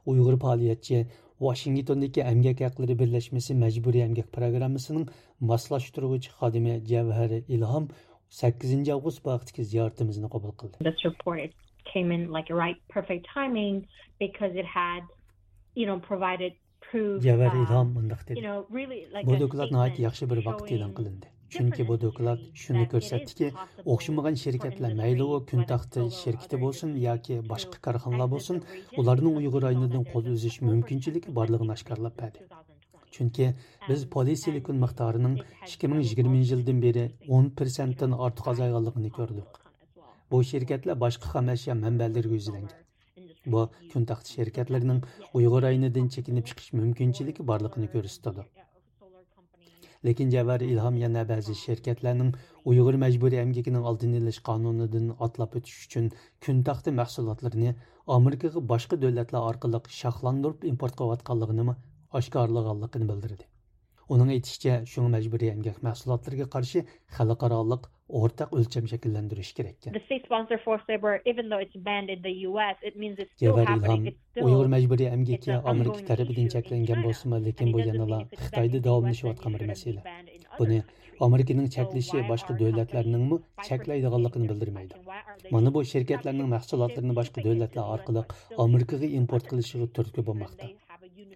ئۇيغۇر پائالىيەتچى، ۋاشىنگتوندىكى ئەمگەك ھەقلىرى بىرلەشمىسى مەجبۇرىي ئەمگەك پىروگراممىسىنىڭ ماسلاشتۇرغۇچى خادىمى جەۋھەر ئىلھام سەككىزىنچى ئاۋغۇست بۇ ھەقتىكى زىيارىتىمىزنى قوبۇل قىلدى. This report, it came in like right, perfect timing because it had, you know, provided جەۋھەر ئىلھام مۇنداق دېدى، بۇ دوكلات ناھايىتى ياخشى بىر ۋاقىتتا ئېلان قىلىندى. چۈنكى بۇ دوكلات شۇنى كۆرسەتتىكى، ئوخشىمىغان شىركەتلەر، مەيلى ئۇ كۈن تەختە شىركىتى بولسۇن ياكى باشقا كارخانىلار بولسۇن، ئۇلارنىڭ ئۇيغۇر رايونىدىن قول ئۈزۈش مۇمكىنچىلىكى بارلىقىنى ئاشكارىلاپ بەردى. چۈنكى بىز پولىسىلىكون مىقدارىنىڭ ئىككى مىڭ يىگىرمىنچى يىلدىن بېرى ئون پىرسەنتتىن ئارتۇق ئازايغانلىقىنى كۆردۇق. بۇ شىركەتلەر باشقا خام ئەشيا مەنبەلىرىگە يۈزلەنگەن. بۇ، كۈن تەختە شىركەتلىرىنىڭ ئۇيغۇر رايونىدىن چېكىنىپ چىقىش مۇمكىنچىلىكى بارلىقىنى كۆرسىتىدۇ. لېكىن جەۋھەر ئىلھام يەنە بەزى شىركەتلەرنىڭ ئۇيغۇر مەجبۇرىي ئەمگىكىنىڭ ئالدىنى ئېلىش قانۇنىدىن ئاتلاپ ئۆتۈش ئۈچۈن كۈن تەختە مەھسۇلاتلىرىنى ئامېرىكىغا باشقا دۆلەتلەر ئارقىلىق شاخلاندۇرۇپ ئىمپورت قىلىۋاتقانلىقىنىمۇ ئاشكارىلىغانلىقىنى بىلدۈردى. ئۇنىڭ ئېيتىشىچە، شۇڭا مەجبۇرىي ئەمگەك مەھسۇلاتلىرىغا قارشى خەلقئارالىق ئورتاق ئۆلچەم شەكىللەندۈرۈش كېرەككەن. The state-sponsored forced labor, even though it's banned in the U S, it means it's still يەۋەر happening. ئىلھام، ئۇيغۇر مەجبۇرىي ئەمگىكى ئامېرىكا تەرىپىدىن چەكلەنگەن بولسىمۇ، لېكىن بۇ يەنىلا خىتايدا داۋاملىشىۋاتقان بىر مەسىلە. بۇنى ئامېرىكىنىڭ چەكلىشى باشقا دۆلەتلەرنىڭمۇ چەكلەيدىغانلىقىنى بىلدۈرمەيدۇ. مانا بۇ شىركەتلەرنىڭ مەھسۇلاتلىرىنى باشقا دۆلەتلەر ئارقىلىق ئامېرىكىغا ئىمپورت قىلىشىغا تۈرتكە بولماقتا.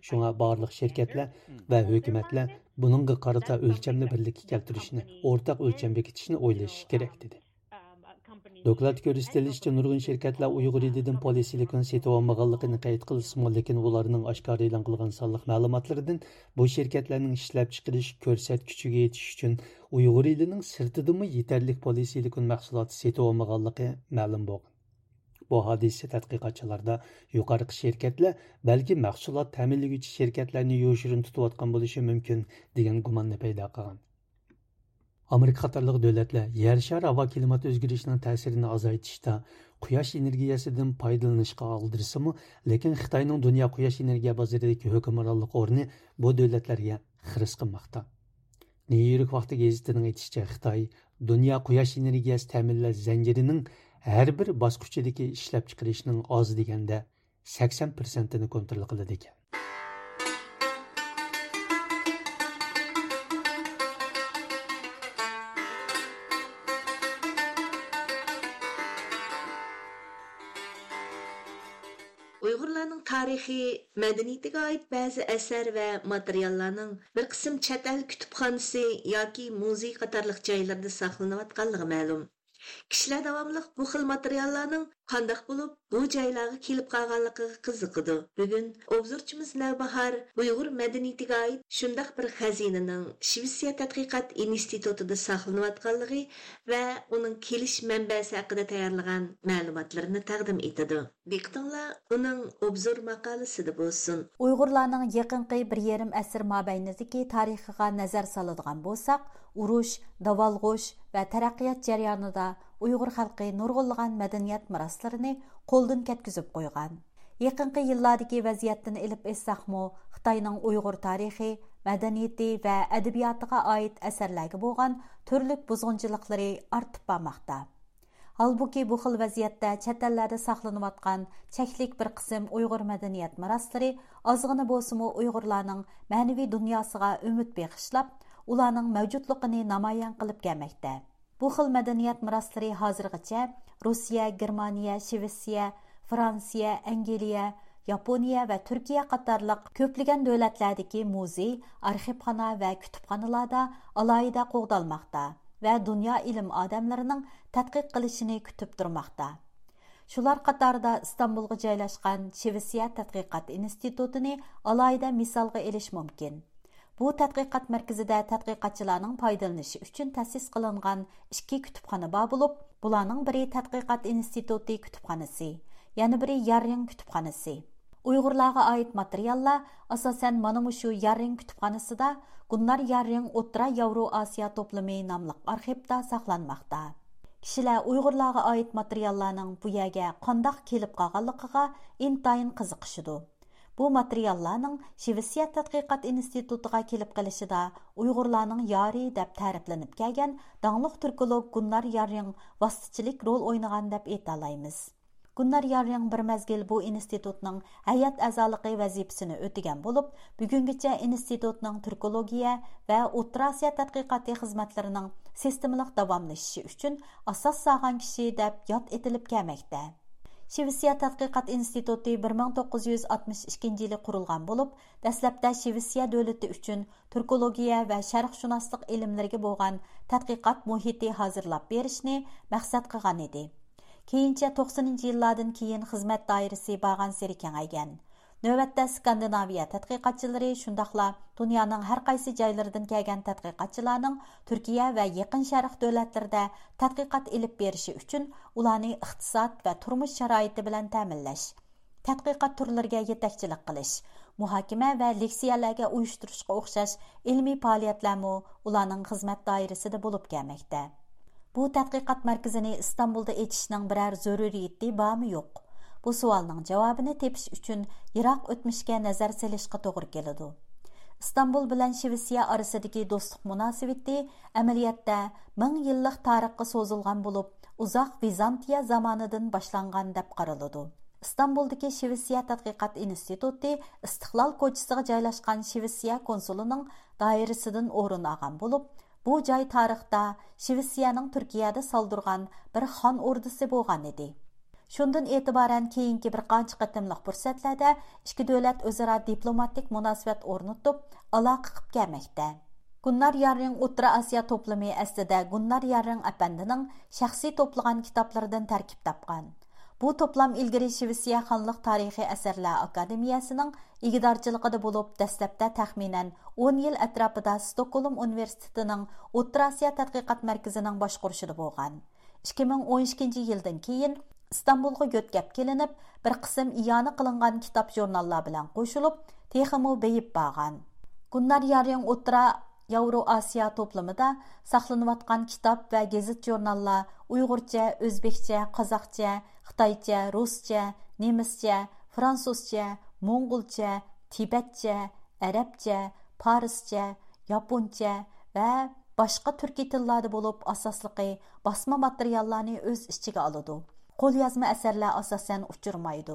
شۇڭا بارلىق شىركەتلەر ۋە ھۆكۈمەتلەر بۇنىڭغا قارىتا ئۆلچەمنى بىرلىككە كەلتۈرۈشنى، ئورتاق ئۆلچەم بېكىتىشنى ئويلىشىشى كېرەك، دېدى. دوكلاتتا كۆرسىتىلىشىچە، نۇرغۇن شىركەتلەر ئۇيغۇر ئېلىدىن پولىسىلىكون سېتىۋالمىغانلىقىنى قەيت قىلسىمۇ، لېكىن ئۇلارنىڭ ئاشكارا ئېلان قىلغان سانلىق مەلۇماتلىرىدىن بۇ شىركەتلەرنىڭ ئىشلەپچىقىرىش كۆرسەتكۈچىگە يېتىش ئۈچۈن ئۇيغۇر ئېلىنىڭ سىرتىدىمۇ يېتەرلىك پولىسىلىكون مەھسۇلاتى سېتىۋالمىغانلىقى مەلۇم بولغان. بۇ ھادىسە تەتقىقاتچىلاردا يۇقىرىقى شىركەتلەر بەلكى مەھسۇلات تەمىنلىگۈچى شىركەتلەرنى يوشۇرۇن تۇتۇۋاتقان بولۇشى مۇمكىن، دېگەن گۇماننى پەيدا قىلغان. ئامېرىكا قاتارلىق دۆلەتلەر يەر شارى ھاۋا كىلىمات ئۆزگىرىشىنىڭ تەسىرىنى ئازايتىشتا قۇياش ئېنېرگىيەسىدىن پايدىلىنىشقا ئالدىرىسىمۇ، لېكىن خىتاينىڭ دۇنيا قۇياش ئېنېرگىيە بازىرىدىكى ھۆكۈمرانلىق ئورنى بۇ دۆلەتلەرگە خىرىس قىلماقتا. نيۇ يورك ۋاقتى گېزىتىنىڭ ئېيتىشىچە، خىتاي دۇنيا قۇياش ئېنېرگىيەسى تەمىنلەش زەنجىرىنىڭ ھەر بىر باسقۇچىدىكى ئىشلەپچىقىرىشنىڭ ئاز دېگەندە سەكسەن پىرسەنتىنى كونترول قىلىدىكەن. ئۇيغۇرلارنىڭ تارىخى، مەدەنىيىتىگە ئائىت بەزى ئەسەر ۋە ماتېرىياللارنىڭ بىر قىسىم چەت ئەل كۇتۇپخانىسى ياكى مۇزېي قاتارلىق جايلىرىدا ساقلىنىۋاتقانلىقى مەلۇم. كىشىلەر داۋاملىق بۇ خىل ماتېرىياللارنىڭ قانداق بولۇپ بۇ جايلارغا كېلىپ قالغانلىقىغا قىزىقىدۇ. بۈگۈن ئوبزورچىمىز نەۋباھار ئۇيغۇر مەدەنىيىتىگە ئائىت شۇنداق بىر خەزىنىنىڭ شىۋېتسىيە تەتقىقات ئىنستىتۇتىدا ساقلىنىۋاتقانلىقى ۋە ئۇنىڭ كېلىش مەنبەسى ھەققىدە تەييارلىغان مەلۇماتلىرىنى تەقدىم ئېتىدۇ. دىققىتىڭلار ئۇنىڭ ئوبزور ماقالىسىدە بولسۇن. ئۇيغۇرلارنىڭ يېقىنقى بىر يېرىم ئەسىر مابەينىدىكى تارىخىغا نەزەر سالىدىغان بولساق، ئۇرۇش، داۋالغۇش ۋە تەرەققىيات جەريانىدا ئۇيغۇر خەلقى نۇرغۇنلىغان مەدەنىيەت مىراسلىرىنى قولدىن كەتكۈزۈپ قويغان. يېقىنقى يىللاردىكى ۋەزىيەتتىن ئېلىپ ئېيتساقمۇ، خىتاينىڭ ئۇيغۇر تارىخى، مەدەنىيىتى ۋە ئەدەبىياتىغا ئائىت ئەسەرلەرگە بولغان تۈرلۈك بۇزغۇنچىلىقلىرى ئارتىپ بارماقتا. ھالبۇكى، بۇ خىل ۋەزىيەتتە چەت ئەللەردە ساقلىنىۋاتقان چەكلىك بىر قىسىم ئۇيغۇر مەدەنىيەت مىراسلىرى ئازغىنا بولسىمۇ ئۇيغۇرلارنىڭ مەنىۋى دۇنياسىغا ئۈمىد بېغىشلاپ، ئۇلارنىڭ مەۋجۇتلۇقىنى نامايان قىلىپ كەلمەكتە. بۇ خىل مەدەنىيەت مىراسلىرى ھازىرغىچە روسىيە، گېرمانىيە، شىۋېتسىيە، فرانسىيە، ئەنگلىيە، ياپونىيە ۋە تۈركىيە قاتارلىق كۆپلىگەن دۆلەتلەردىكى مۇزېي، ئارخىپخانا ۋە كۇتۇپخانىلاردا ئالاھىدە قوغدالماقتا ۋە دۇنيا ئىلىم ئادەملىرىنىڭ تەتقىق قىلىشىنى كۈتۈپ تۇرماقتا. شۇلار قاتارىدا ئىستانبۇلغا جايلاشقان شىۋېتسىيە تەتقىقات ئىنستىتۇتىنى ئالاھىدە مىسالغا ئېلىش مۇمكىن. بۇ تەتقىقات مەركىزىدە تەتقىقاتچىلارنىڭ پايدىلىنىشى ئۈچۈن تەسىس قىلىنغان ئىككى كۇتۇپخانا بار بولۇپ، بۇلارنىڭ بىرى تەتقىقات ئىنستىتۇتى كۇتۇپخانىسى، يەنە بىرى ياررىڭ كۇتۇپخانىسى. ئۇيغۇرلارغا ئائىت ماتېرىياللار، ئاساسەن، مانا مۇشۇ ياررىڭ كۇتۇپخانىسىدا گۇننار ياررىڭ ئوتتۇرا ياۋرو ئاسىيا توپلىمى ناملىق ئارخىپتا ساقلانماقتا. كىشىلەر ئۇيغۇرلارغا ئائىت ماتېرىياللارنىڭ بۇ يەرگە قانداق كېلىپ قالغانلىقىغا ئىنتايىن قىزىقىشىدۇ. بۇ ماتېرىياللارنىڭ شىۋېتسىيە تەتقىقات ئىنستىتۇتىغا كېلىپ قېلىشىدا ئۇيغۇرلارنىڭ يارى دەپ تەرىپلىنىپ كەلگەن داڭلىق تۈركولوگ گۇننار ياررىڭ ۋاسىتىچىلىك رول ئوينىغان دەپ ئېيتالايمىز. گۇننار ياررىڭ بىر مەزگىل بۇ ئىنستىتۇتنىڭ ھەيئەت ئەزالىقى ۋەزىپىسىنى ئۆتىگەن بولۇپ، بۈگۈنگىچە ئىنستىتۇتنىڭ تۈركولوگىيە ۋە ئوتتۇرا ئاسىيا تەتقىقاتى خىزمەتلىرىنىڭ سىستېمىلىق داۋاملىشىشى ئۈچۈن ئاساس سالغان كىشى دەپ ياد ئېتىلىپ كەلمەكتە. شىۋېتسىيە تەتقىقات ئىنستىتۇتى بىر مىڭ توققۇز يۈز ئاتمىش ئىككىنچى يىلى قۇرۇلغان بولۇپ، دەسلەپتە شىۋېتسىيە دۆلىتى ئۈچۈن تۈركولوگىيە ۋە شەرقشۇناسلىق ئىلىملىرىگە بولغان تەتقىقات مۇھىتى ھازىرلاپ بېرىشنى مەقسەت قىلغان ئىدى. كېيىنچە توقسىنىنچى يىللاردىن كېيىن خىزمەت دائىرىسى بارغانسېرى كېڭەيگەن. نۆۋەتتە ئىسكاندىناۋىيە تەتقىقاتچىلىرى، شۇنداقلا دۇنيانىڭ ھەر قايسى جايلىرىدىن كەلگەن تەتقىقاتچىلارنىڭ تۈركىيە ۋە يېقىن شەرق دۆلەتلىرىدە تەتقىقات ئېلىپ بېرىشى ئۈچۈن ئۇلارنى ئىقتىساد ۋە تۇرمۇش شارائىتى بىلەن تەمىنلەش، تەتقىقات تۈرلىرىگە يېتەكچىلىك قىلىش، مۇھاكىمە ۋە لېكسىيەلەرگە ئۇيۇشتۇرۇشقا ئوخشاش ئىلمىي پائالىيەتلەرمۇ ئۇلارنىڭ خىزمەت دائىرىسىدە بولۇپ كەلمەكتە. بۇ تەتقىقات مەركىزىنى ئىستانبۇلدا ئېچىشنىڭ بىرەر زۆرۈرىيىتى بارمۇ يوق؟ بۇ سوئالنىڭ جاۋابىنى تېپىش ئۈچۈن يىراق ئۆتمۈشكە نەزەر سېلىشقا توغرا كېلىدۇ. ئىستانبۇل بىلەن شىۋېتسىيە ئارىسىدىكى دوستلۇق مۇناسىۋىتى ئەمەلىيەتتە مىڭ يىللىق تارىخقا سوزۇلغان بولۇپ، ئۇزاق ۋىزانتىيە زامانىدىن باشلانغان دەپ قارىلىدۇ. ئىستانبۇلدىكى شىۋېتسىيە تەتقىقات ئىنستىتۇتى ئىستىقلال كوچىسىغا جايلاشقان شىۋېتسىيە كونسۇلىنىڭ دائىرىسىدىن ئورۇن ئالغان بولۇپ، بۇ جاي تارىختا شىۋېتسىيەنىڭ تۈركىيەدە سالدۇرغان بىر خان ئوردىسى بولغان ئىدى. شۇندىن ئېتىبارەن كېيىنكى بىر قانچە قېتىملىق پۇرسەتلەردە ئىككى دۆلەت ئۆزئارا دىپلوماتىك مۇناسىۋەت ئورنىتىپ، ئالاقە قىلىپ كەلمەكتە. گۇننار ياررىڭ ئوتتۇرا ئاسىيا توپلىمى ئەسلىدە گۇننار ياررىڭ ئەپەندىنىڭ شەخسىي توپلىغان كىتابلىرىدىن تەركىب تاپقان. بۇ توپلام ئىلگىرى شىۋېتسىيە خانلىق تارىخىي ئەسەرلەر ئاكادېمىيەسىنىڭ ئىگىدارچىلىقىدا بولۇپ، دەسلەپتە تەخمىنەن ئون يىل ئەتراپىدا ستوكھولم ئۇنىۋېرسىتېتىنىڭ ئوتتۇرا ئاسىيا تەتقىقات مەركىزىنىڭ باشقۇرۇشىدا بولغان. ئىككى مىڭ ئون ئىككىنچى يىلدىن كېيىن ئىستانبۇلغا يۆتكەپ كېلىنىپ، بىر قىسىم ئىئانە قىلىنغان كىتاب ژۇرناللار بىلەن قوشۇلۇپ، تېخىمۇ بېيىپ بارغان. گۇننار ياررىڭ ئوتتۇرا ياۋرو ئاسىيا توپلىمىدا ساقلىنىۋاتقان كىتاب ۋە گېزىت ژۇرناللار ئۇيغۇرچە، ئۆزبېكچە، قازاقچە، خىتايچە، رۇسچە، نېمىسچە، فرانسۇزچە، موڭغۇلچە، تىبەتچە، ئەرەبچە، پارسچە، ياپونچە ۋە باشقا تۈركىي تىللاردا بولۇپ، ئاساسلىقى باسما ماتېرىياللارنى ئۆز ئىچىگە ئالىدۇ. قوليازما ئەسەرلەر ئاساسەن ئۇچرىمايدۇ.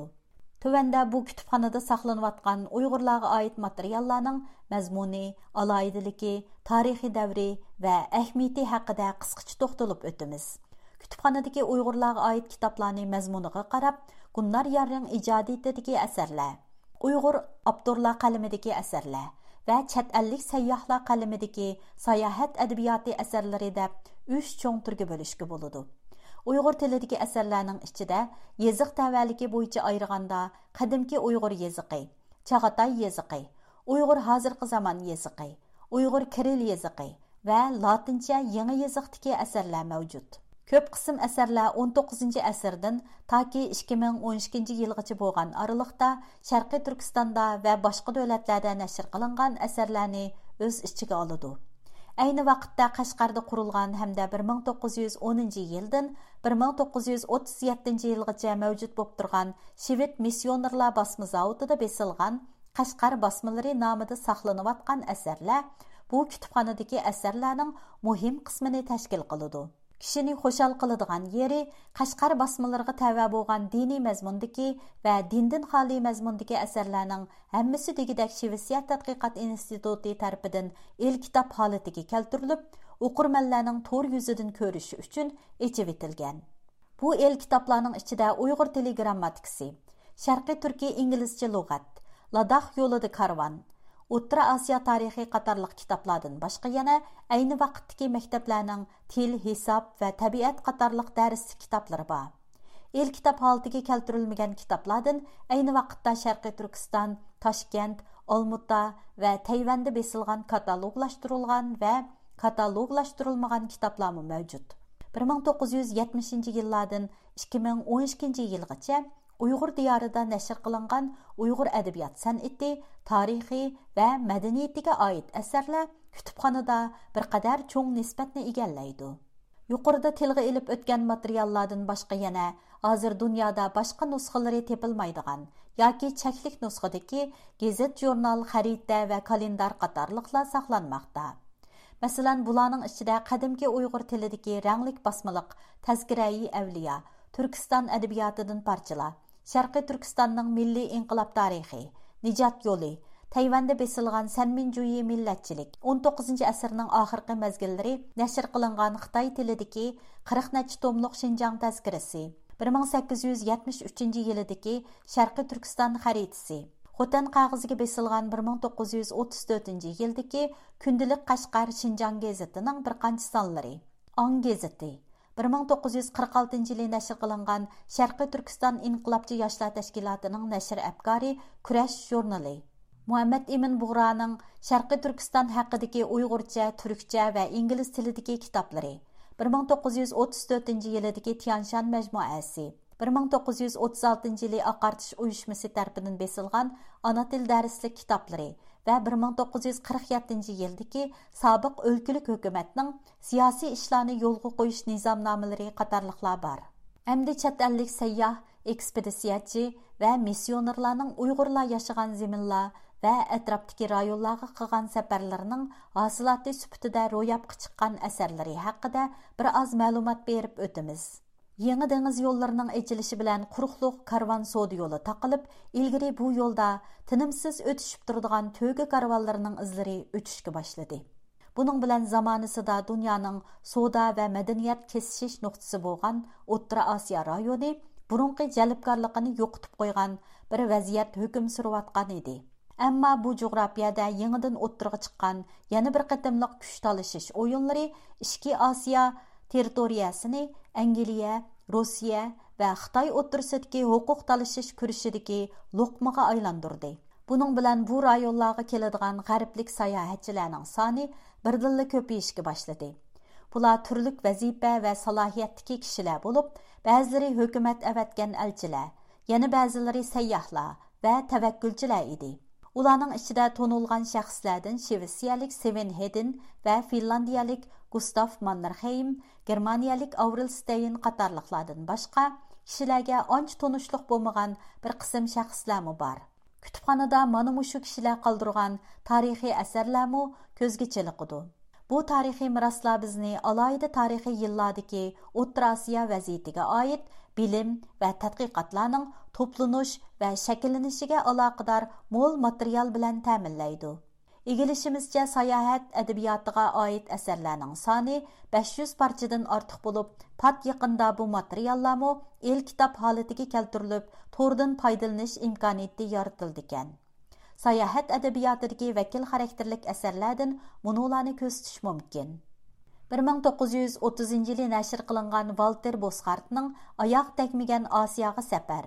تۆۋەندە بۇ كۇتۇپخانىدا ساقلىنىۋاتقان ئۇيغۇرلارغا ئائىت ماتېرىياللارنىڭ مەزمۇنى، ئالاھىدىلىكى، تارىخىي دەۋرى ۋە ئەھمىيىتى ھەققىدە قىسقىچە توختىلىپ ئۆتىمىز. كۇتۇپخانىدىكى ئۇيغۇرلارغا ئائىت كىتابلارنى مەزمۇنىغا قاراپ، گۇننار ياررىڭ ئىجادىيىتىدىكى ئەسەرلەر، ئۇيغۇر ئاپتورلار قەلىمىدىكى ئەسەرلەر ۋە چەت ئەللىك سەيياھلار قەلىمىدىكى ساياھەت ئەدەبىياتى ئەسەرلىرى دەپ ئۈچ چوڭ تۈرگە بۆلۈشكە بولىدۇ. ئۇيغۇر تىلىدىكى ئەسەرلەرنىڭ ئىچىدە يېزىق تەۋەلىكى بويىچە ئايرىغاندا، قەدىمكى ئۇيغۇر يېزىقى، چاغاتاي يېزىقى، ئۇيغۇر ھازىرقى زامان يېزىقى، ئۇيغۇر كىرىل يېزىقى ۋە لاتىنچە يېڭى يېزىقتىكى ئەسەرلەر مەۋجۇت. كۆپ قىسىم ئەسەرلەر ئون توققۇزىنچى ئەسىردىن تاكى ئىككى مىڭ ئون ئىككىنچى يىلغىچە بولغان ئارىلىقتا شەرقىي تۈركىستاندا ۋە باشقا دۆلەتلەردە نەشر قىلىنغان ئەسەرلەرنى ئۆز ئىچىگە ئالىدۇ. ئەينى ۋاقىتتا قەشقەردە قۇرۇلغان ھەمدە بىر مىڭ توققۇز يۈز ئونىنچى يىلدىن بىر مىڭ توققۇز يۈز ئوتتۇز يەتتىنچى يىلغىچە مەۋجۇت بولۇپ تۇرغان شىۋېد مىسسىيونېرلار باسما زاۋۇتىدا بېسىلغان قەشقەر باسمىلىرى نامىدا ساقلىنىۋاتقان ئەسەرلەر بۇ كۇتۇپخانىدىكى ئەسەرلەرنىڭ مۇھىم قىسمىنى تەشكىل قىلىدۇ. كىشىنى خۇشال قىلىدىغان يېرى، قەشقەر باسمىلىرىغا تەۋە بولغان دىنىي مەزمۇندىكى ۋە دىندىن خالىي مەزمۇندىكى ئەسەرلەرنىڭ ھەممىسى دېگۈدەك شىۋېتسىيە تەتقىقات ئىنستىتۇتى تەرىپىدىن ئېلكىتاب ھالىتىگە كەلتۈرۈلۈپ، ئوقۇرمەنلەرنىڭ تور يۈزىدىن كۆرۈشى ئۈچۈن ئېچىۋېتىلگەن. بۇ ئېلكىتابلارنىڭ ئىچىدە ئۇيغۇر تىلى گىرامماتىكىسى، شەرقىي تۈركىي ئىنگلىزچە لۇغەت، لاداخ يولىدا كارۋان، ئوتتۇرا ئاسىيا تارىخى قاتارلىق كىتابلاردىن باشقا يەنە ئەينى ۋاقىتتىكى مەكتەپلەرنىڭ تىل، ھېساب ۋە تەبىئەت قاتارلىق دەرسلىك كىتابلىرى بار. ئېلكىتاب ھالىتىگە كەلتۈرۈلمىگەن كىتابلاردىن ئەينى ۋاقىتتا شەرقىي تۈركىستان، تاشكەنت، ئالمۇتا ۋە تەيۋەندە بېسىلغان كاتالوگلاشتۇرۇلغان ۋە كاتالوگلاشتۇرۇلمىغان كىتابلارمۇ مەۋجۇت. بىر مىڭ توققۇز يۈز يەتمىشىنچى يىللاردىن ئىككى مىڭ ئون ئىككىنچى يىلغىچە ئۇيغۇر دىيارىدا نەشر قىلىنغان ئۇيغۇر ئەدەبىيات سەنئىتى، تارىخى ۋە مەدەنىيىتىگە ئائىت ئەسەرلەر كۇتۇپخانىدا بىر قەدەر چوڭ نىسبەتنى ئىگىلەيدۇ. يۇقىرىدا تىلغا ئېلىپ ئۆتكەن ماتېرىياللاردىن باشقا يەنە ھازىر دۇنيادا باشقا نۇسخىلىرى تېپىلمايدىغان ياكى چەكلىك نۇسخىدىكى گېزىت، ژۇرنال، خەرىتە ۋە كالېندار قاتارلىقلار ساقلانماقتا. مەسىلەن، بۇلارنىڭ ئىچىدە قەدىمكى ئۇيغۇر تىلىدىكى رەڭلىك باسمىلىق تەزكىرەئى ئەۋلىيا، تۈركىستان ئەدەبىياتىدىن پارچىلار، شەرقىي تۈركىستاننىڭ مىللىي ئىنقىلاب تارىخى، نىجات يولى، تەيۋەندە بېسىلغان سەنمىنجۈيى مىللەتچىلىك، ئون توققۇزىنچى ئەسىرنىڭ ئاخىرقى مەزگىللىرى نەشر قىلىنغان خىتاي تىلىدىكى قىرىق نەچچە توملۇق شىنجاڭ تەزكىرىسى، بىر مىڭ سەككىز يۈز يەتمىش ئۈچىنچى يىلىدىكى شەرقىي تۈركىستان خەرىتىسى، خوتەن قەغىزىگە بېسىلغان بىر مىڭ توققۇز يۈز ئوتتۇز تۆتىنچى يىلدىكى كۈندىلىك قەشقەر شىنجاڭ گېزىتىنىڭ بىر قانچە سانلىرى، ئاڭ گېزىتى، بىر مىڭ توققۇز يۈز قىرىق ئالتىنچى يىلى نەشر قىلىنغان شەرقىي تۈركىستان ئىنقىلابچى ياشلار تەشكىلاتىنىڭ نەشر ئەپكارى كۈرەش ژۇرنىلى، مۇھەممەد ئىمىن بۇغرانىڭ شەرقىي تۈركىستان ھەققىدىكى ئۇيغۇرچە، تۈركچە ۋە ئىنگلىز تىلىدىكى كىتابلىرى، بىر مىڭ توققۇز يۈز ئوتتۇز تۆتىنچى يىلىدىكى تيانشان مەجمۇئەسى، بىر مىڭ توققۇز يۈز ئوتتۇز ئالتىنچى يىلى ئاقارتىش ئۇيۇشمىسى تەرىپىدىن بېسىلغان ئانا تىل دەرسلىك كىتابلىرى ۋە بىر مىڭ توققۇز يۈز قىرىق يەتتىنچى يىلدىكى سابىق ئۆلكىلىك ھۆكۈمەتنىڭ سىياسىي ئىشلارنى يولغا قويۇش نىزامنامىلىرى قاتارلىقلار بار. ئەمدى چەت ئەللىك سەيياھ، ئېكسپېدىتسىيەچى ۋە مىسسىيونېرلارنىڭ ئۇيغۇرلار ياشىغان زېمىنلار، ۋە ئەتراپتىكى رايونلارغا قىلغان سەپەرلىرىنىڭ ھاسىلاتى سۈپىتىدە روياپقا چىققان ئەسەرلىرى ھەققىدە بىر ئاز مەلۇمات بېرىپ ئۆتىمىز. يېڭى دېڭىز يوللىرىنىڭ ئېچىلىشى بىلەن قۇرۇقلۇق كارۋان سودا يولى تاقىلىپ، ئىلگىرى بۇ يولدا تىنىمسىز ئۆتۈشۈپ تۇرىدىغان تۆگە كارۋانلىرىنىڭ ئىزلىرى ئۆچۈشكە باشلىدى. بۇنىڭ بىلەن زامانىسىدا دۇنيانىڭ سودا ۋە مەدەنىيەت كېسىشىش نۇقتىسى بولغان ئوتتۇرا ئاسىيا رايونى بۇرۇنقى جەلپكارلىقىنى يوقىتىپ قويغان بىر ۋەزىيەت ھۆكۈم سۈرۈۋاتقان ئىدى. ئەمما بۇ جۇغراپىيەدە يېڭىدىن ئوتتۇرىغا چىققان يەنە بىر قېتىملىق كۈچ تالىشىش ئويۇنلىرى ئىچكى ئاسىيا تېررىتورىيەسىنى ئەنگلىيە، روسىيە ۋە خىتاي ئوتتۇرىسىدىكى ھوقۇق تالىشىش كۈرىشىدىكى لوقمىغا ئايلاندۇردى. بۇنىڭ بىلەن بۇ رايونلارغا كېلىدىغان غەربلىك ساياھەتچىلەرنىڭ سانى بىردىنلا كۆپىيىشكە باشلىدى. بۇلار تۈرلۈك ۋەزىپە ۋە سالاھىيەتتىكى كىشىلەر بولۇپ، بەزىلىرى ھۆكۈمەت ئەۋەتكەن ئەلچىلەر، يەنە بەزىلىرى سەيياھلار ۋە تەۋەككۈلچىلەر ئىدى. ئۇلارنىڭ ئىچىدە تونۇلغان شەخسلەردىن شىۋېتسىيەلىك سېۋېن ھېدىن ۋە فىنلاندىيەلىك گۇستاف ماننېرخېيم، گېرمانىيەلىك ئاۋرېل ستەين قاتارلىقلاردىن باشقا كىشىلەرگە ئانچە تونۇشلۇق بولمىغان بىر قىسىم شەخسلەرمۇ بار. كۇتۇپخانىدا مانا مۇشۇ كىشىلەر قالدۇرغان تارىخىي ئەسەرلەرمۇ كۆزگە چېلىقىدۇ. بۇ تارىخىي مىراسلار بىزنى ئالاھىدە تارىخىي يىللاردىكى ئوتتۇرا ئاسىيا ۋەزىيىتىگە ئائىت بىلىم ۋە تەتقىقاتلارنىڭ توپلىنىش ۋە شەكىللىنىشىگە ئالاقىدار مول ماتېرىيال بىلەن تەمىنلەيدۇ. ئىگىلىشىمىزچە، ساياھەت ئەدەبىياتىغا ئائىت ئەسەرلەرنىڭ سانى بەش يۈز پارچىدىن ئارتۇق بولۇپ، پات يېقىندا بۇ ماتېرىياللارمۇ ئېلكىتاب ھالىتىگە كەلتۈرۈلۈپ، توردىن پايدىلىنىش ئىمكانىيىتى يارىتىلىدىكەن. ساياھەت ئەدەبىياتىدىكى ۋەكىل خاراكتېرلىك ئەسەرلەردىن مۇنۇلارنى كۆرسىتىش مۇمكىن. بىر مىڭ توققۇز يۈز ئوتتۇزىنچى يىلى نەشر قىلىنغان ۋالتېر بوسخارتنىڭ ئاياغ تەگمىگەن ئاسىياغا سەپەر،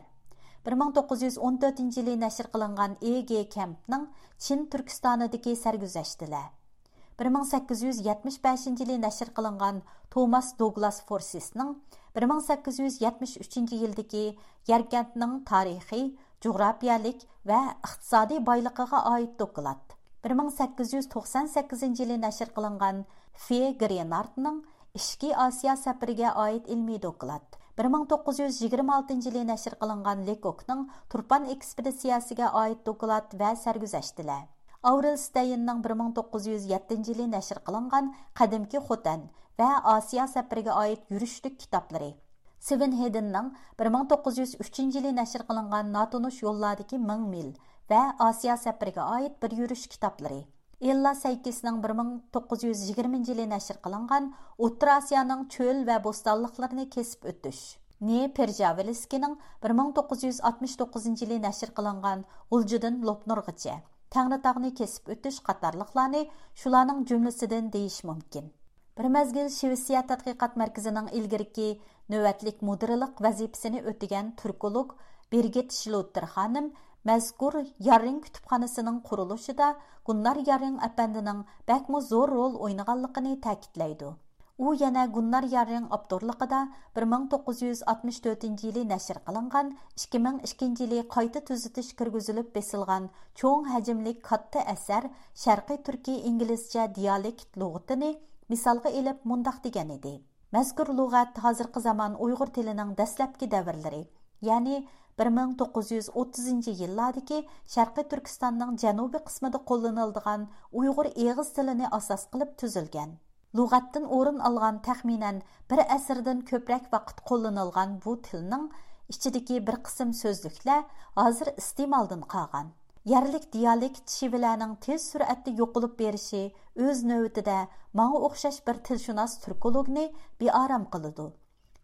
بىر مىڭ توققۇز يۈز ئون تۆتىنچى يىلى نەشر قىلىنغان ئېي گې كەمپنىڭ چىن تۈركىستانىدىكى سەرگۈزەشتلەر، بىر مىڭ سەككىز يۈز يەتمىش بەشىنچى يىلى نەشر قىلىنغان توماس دوگلاس فورسىسنىڭ بىر مىڭ سەككىز يۈز يەتمىش ئۈچىنچى يىلدىكى يەركەنتنىڭ تارىخىي، جۇغراپىيەلىك ۋە ئىقتىسادىي بايلىقىغا ئائىت دوكلات، بىر مىڭ سەككىز يۈز توقسان سەككىزىنچى يىلى نەشر قىلىنغان فې گرېنارتنىڭ ئىچكى ئاسىيا سەپىرىگە ئائىت ئىلمىي دوكلات، بىر مىڭ توققۇز يۈز يىگىرمە ئالتىنچى يىلى نەشر قىلىنغان لېكوكنىڭ تۇرپان ئېكسپېدىتسىيەسىگە ئائىت دوكلات ۋە سەرگۈزەشتلەر، ئاۋرېل ستەيننىڭ بىر مىڭ توققۇز يۈز يەتتىنچى يىلى نەشر قىلىنغان قەدىمكى خوتەن ۋە ئاسىيا سەپىرىگە ئائىت يۈرۈشلۈك كىتابلىرى، سېۋېن ھېدىننىڭ بىر مىڭ توققۇز يۈز ئۈچىنچى يىلى نەشر قىلىنغان ناتونۇش يوللاردىكى مىڭ مىل ۋە ئاسىيا سەپىرىگە ئائىت بىر يۈرۈش كىتابلىرى، ئېللا سەيكىسنىڭ بىر مىڭ توققۇز يۈز يىگىرمىنچى يىلى نەشر قىلىنغان ئوتتۇرا ئاسىيانىڭ چۆل ۋە بوستانلىقلىرىنى كېسىپ ئۆتۈش، نې پېرژاۋلىسكىنىڭ بىر مىڭ توققۇز يۈز ئاتمىش توققۇزىنچى يىلى نەشر قىلىنغان غۇلجىدىن لوپنۇرغىچە تەڭرىتاغنى كېسىپ ئۆتۈش قاتارلىقلارنى شۇلارنىڭ جۈملىسىدىن دېيىش مۇمكىن. بىر مەزگىل شىۋېتسىيە تەتقىقات مەركىزىنىڭ ئىلگىرىكى نۆۋەتلىك مۇدىرلىق ۋەزىپىسىنى ئۆتىگەن تۈركولوگ بىرگىت شلوتتېر خانىم مەزكۇر ياررىڭ كۇتۇپخانىسىنىڭ قۇرۇلۇشىدا گۇننار ياررىڭ ئەپەندىنىڭ بەكمۇ زور رول ئوينىغانلىقىنى تەكىتلەيدۇ. ئۇ يەنە گۇننار ياررىڭ ئاپتورلۇقىدا بىر مىڭ توققۇز يۈز ئاتمىش تۆتىنچى يىلى نەشر قىلىنغان، ئىككى مىڭ ئىككىنچى يىلى قايتا تۈزىتىش كىرگۈزۈلۈپ بېسىلغان چوڭ ھەجىملىك كاتتا ئەسەر شەرقىي تۈركىي ئىنگلىزچە دىيالېكت لۇغىتىنى مىسالغا ئېلىپ مۇنداق دېگەن ئىدى: مەزكۇر لۇغەت ھازىرقى زامان ئۇيغۇر تىلىنىڭ دەسلەپكى دەۋرلىرى، يەنى بىر مىڭ توققۇز يۈز ئوتتۇزىنچى يىللاردىكى شەرقىي تۈركىستاننىڭ جەنۇبىي قىسمىدا قوللىنىلىدىغان ئۇيغۇر ئېغىز تىلىنى ئاساس قىلىپ تۈزۈلگەن. لۇغەتتىن ئورۇن ئالغان تەخمىنەن بىر ئەسىردىن كۆپرەك ۋاقىت قوللىنىلغان بۇ تىلنىڭ ئىچىدىكى بىر قىسىم سۆزلۈكلەر ھازىر ئىستېمالدىن قالغان. يەرلىك دىيالېكت شېۋىلەرنىڭ تېز سۈرئەتتە يوقىلىپ بېرىشى ئۆز نۆۋىتىدە ماڭا ئوخشاش بىر تىلشۇناس تۈركولوگنى بىئارام قىلىدۇ.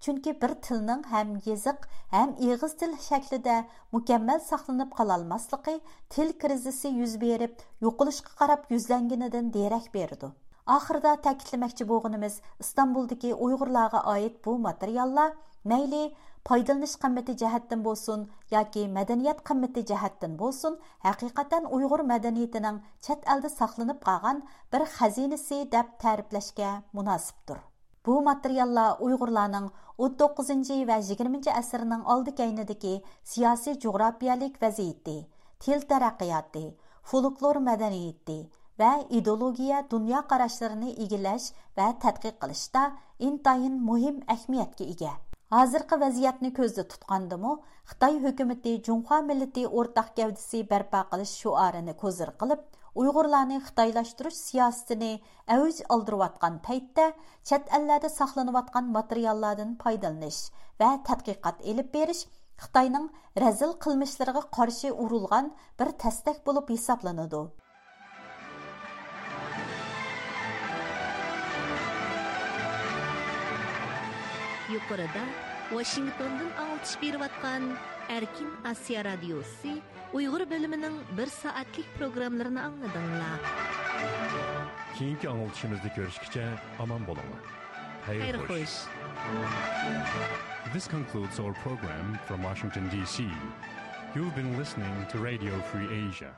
چۈنكى بىر تىلنىڭ ھەم يېزىق، ھەم ئېغىز تىل شەكلىدە مۇكەممەل ساقلىنىپ قالالماسلىقى تىل كىرىزىسى يۈز بېرىپ، يوقىلىشقا قاراپ يۈزلەنگىنىدىن دېرەك بېرىدۇ. ئاخىرىدا تەكىتلىمەكچى بولغىنىمىز، ئىستانبۇلدىكى ئۇيغۇرلارغا ئائىت بۇ ماتېرىياللار مەيلى پايدىلىنىش قىممىتى جەھەتتىن بولسۇن ياكى مەدەنىيەت قىممىتى جەھەتتىن بولسۇن، ھەقىقەتەن ئۇيغۇر مەدەنىيىتىنىڭ چەت ئەلدە ساقلىنىپ قالغان بىر خەزىنىسى دەپ تەرىپلەشكە مۇناسىپتۇر. بۇ ماتېرىياللار ئۇيغۇرلارنىڭ ئون توققۇزىنچى ۋە يىگىرمىنچى ئەسىرنىڭ ئالدى كەينىدىكى سىياسىي جۇغراپىيەلىك ۋەزىيىتى، تىل تەرەققىياتى، فولكلور مەدەنىيىتى ۋە ئىدېئولوگىيە دۇنيا قاراشلىرىنى ئىگىلەش ۋە تەتقىق قىلىشتا ئىنتايىن مۇھىم ئەھمىيەتكە ئىگە. ھازىرقى ۋەزىيەتنى كۆزدە تۇتقاندىمۇ، خىتاي ھۆكۈمىتى جۇڭخۇا مىللىتى ئورتاق گەۋدىسى بەرپا قىلىش شوئارىنى كوزىر قىلىپ، ئۇيغۇرلارنى خىتايلاشتۇرۇش سىياسىتىنى ئەۋج ئالدۇرۇۋاتقان پەيتتە، چەت ئەللەردە ساقلىنىۋاتقان ماتېرىياللاردىن پايدىلىنىش ۋە تەتقىقات ئېلىپ بېرىش خىتاينىڭ رەزىل قىلمىشلىرىغا قارشى ئۇرۇلغان بىر تەستەك بولۇپ ھېسابلىنىدۇ. يۇقىرىدا ۋاشىنگتوندىن ئاڭلىتىش بېرىۋاتقان ئەركىن ئاسىيا رادىيوسى ئۇيغۇر بۆلۈمىنىڭ بىر سائەتلىك پروگراممىلىرىنى ئاڭلىدىڭلار. كېيىنكى ئاڭلىتىشىمىزدا كۆرۈشكىچە ئامان بولۇڭلار. خەير خوش. This concludes our program from Washington, D C. You've been listening to Radio Free Asia.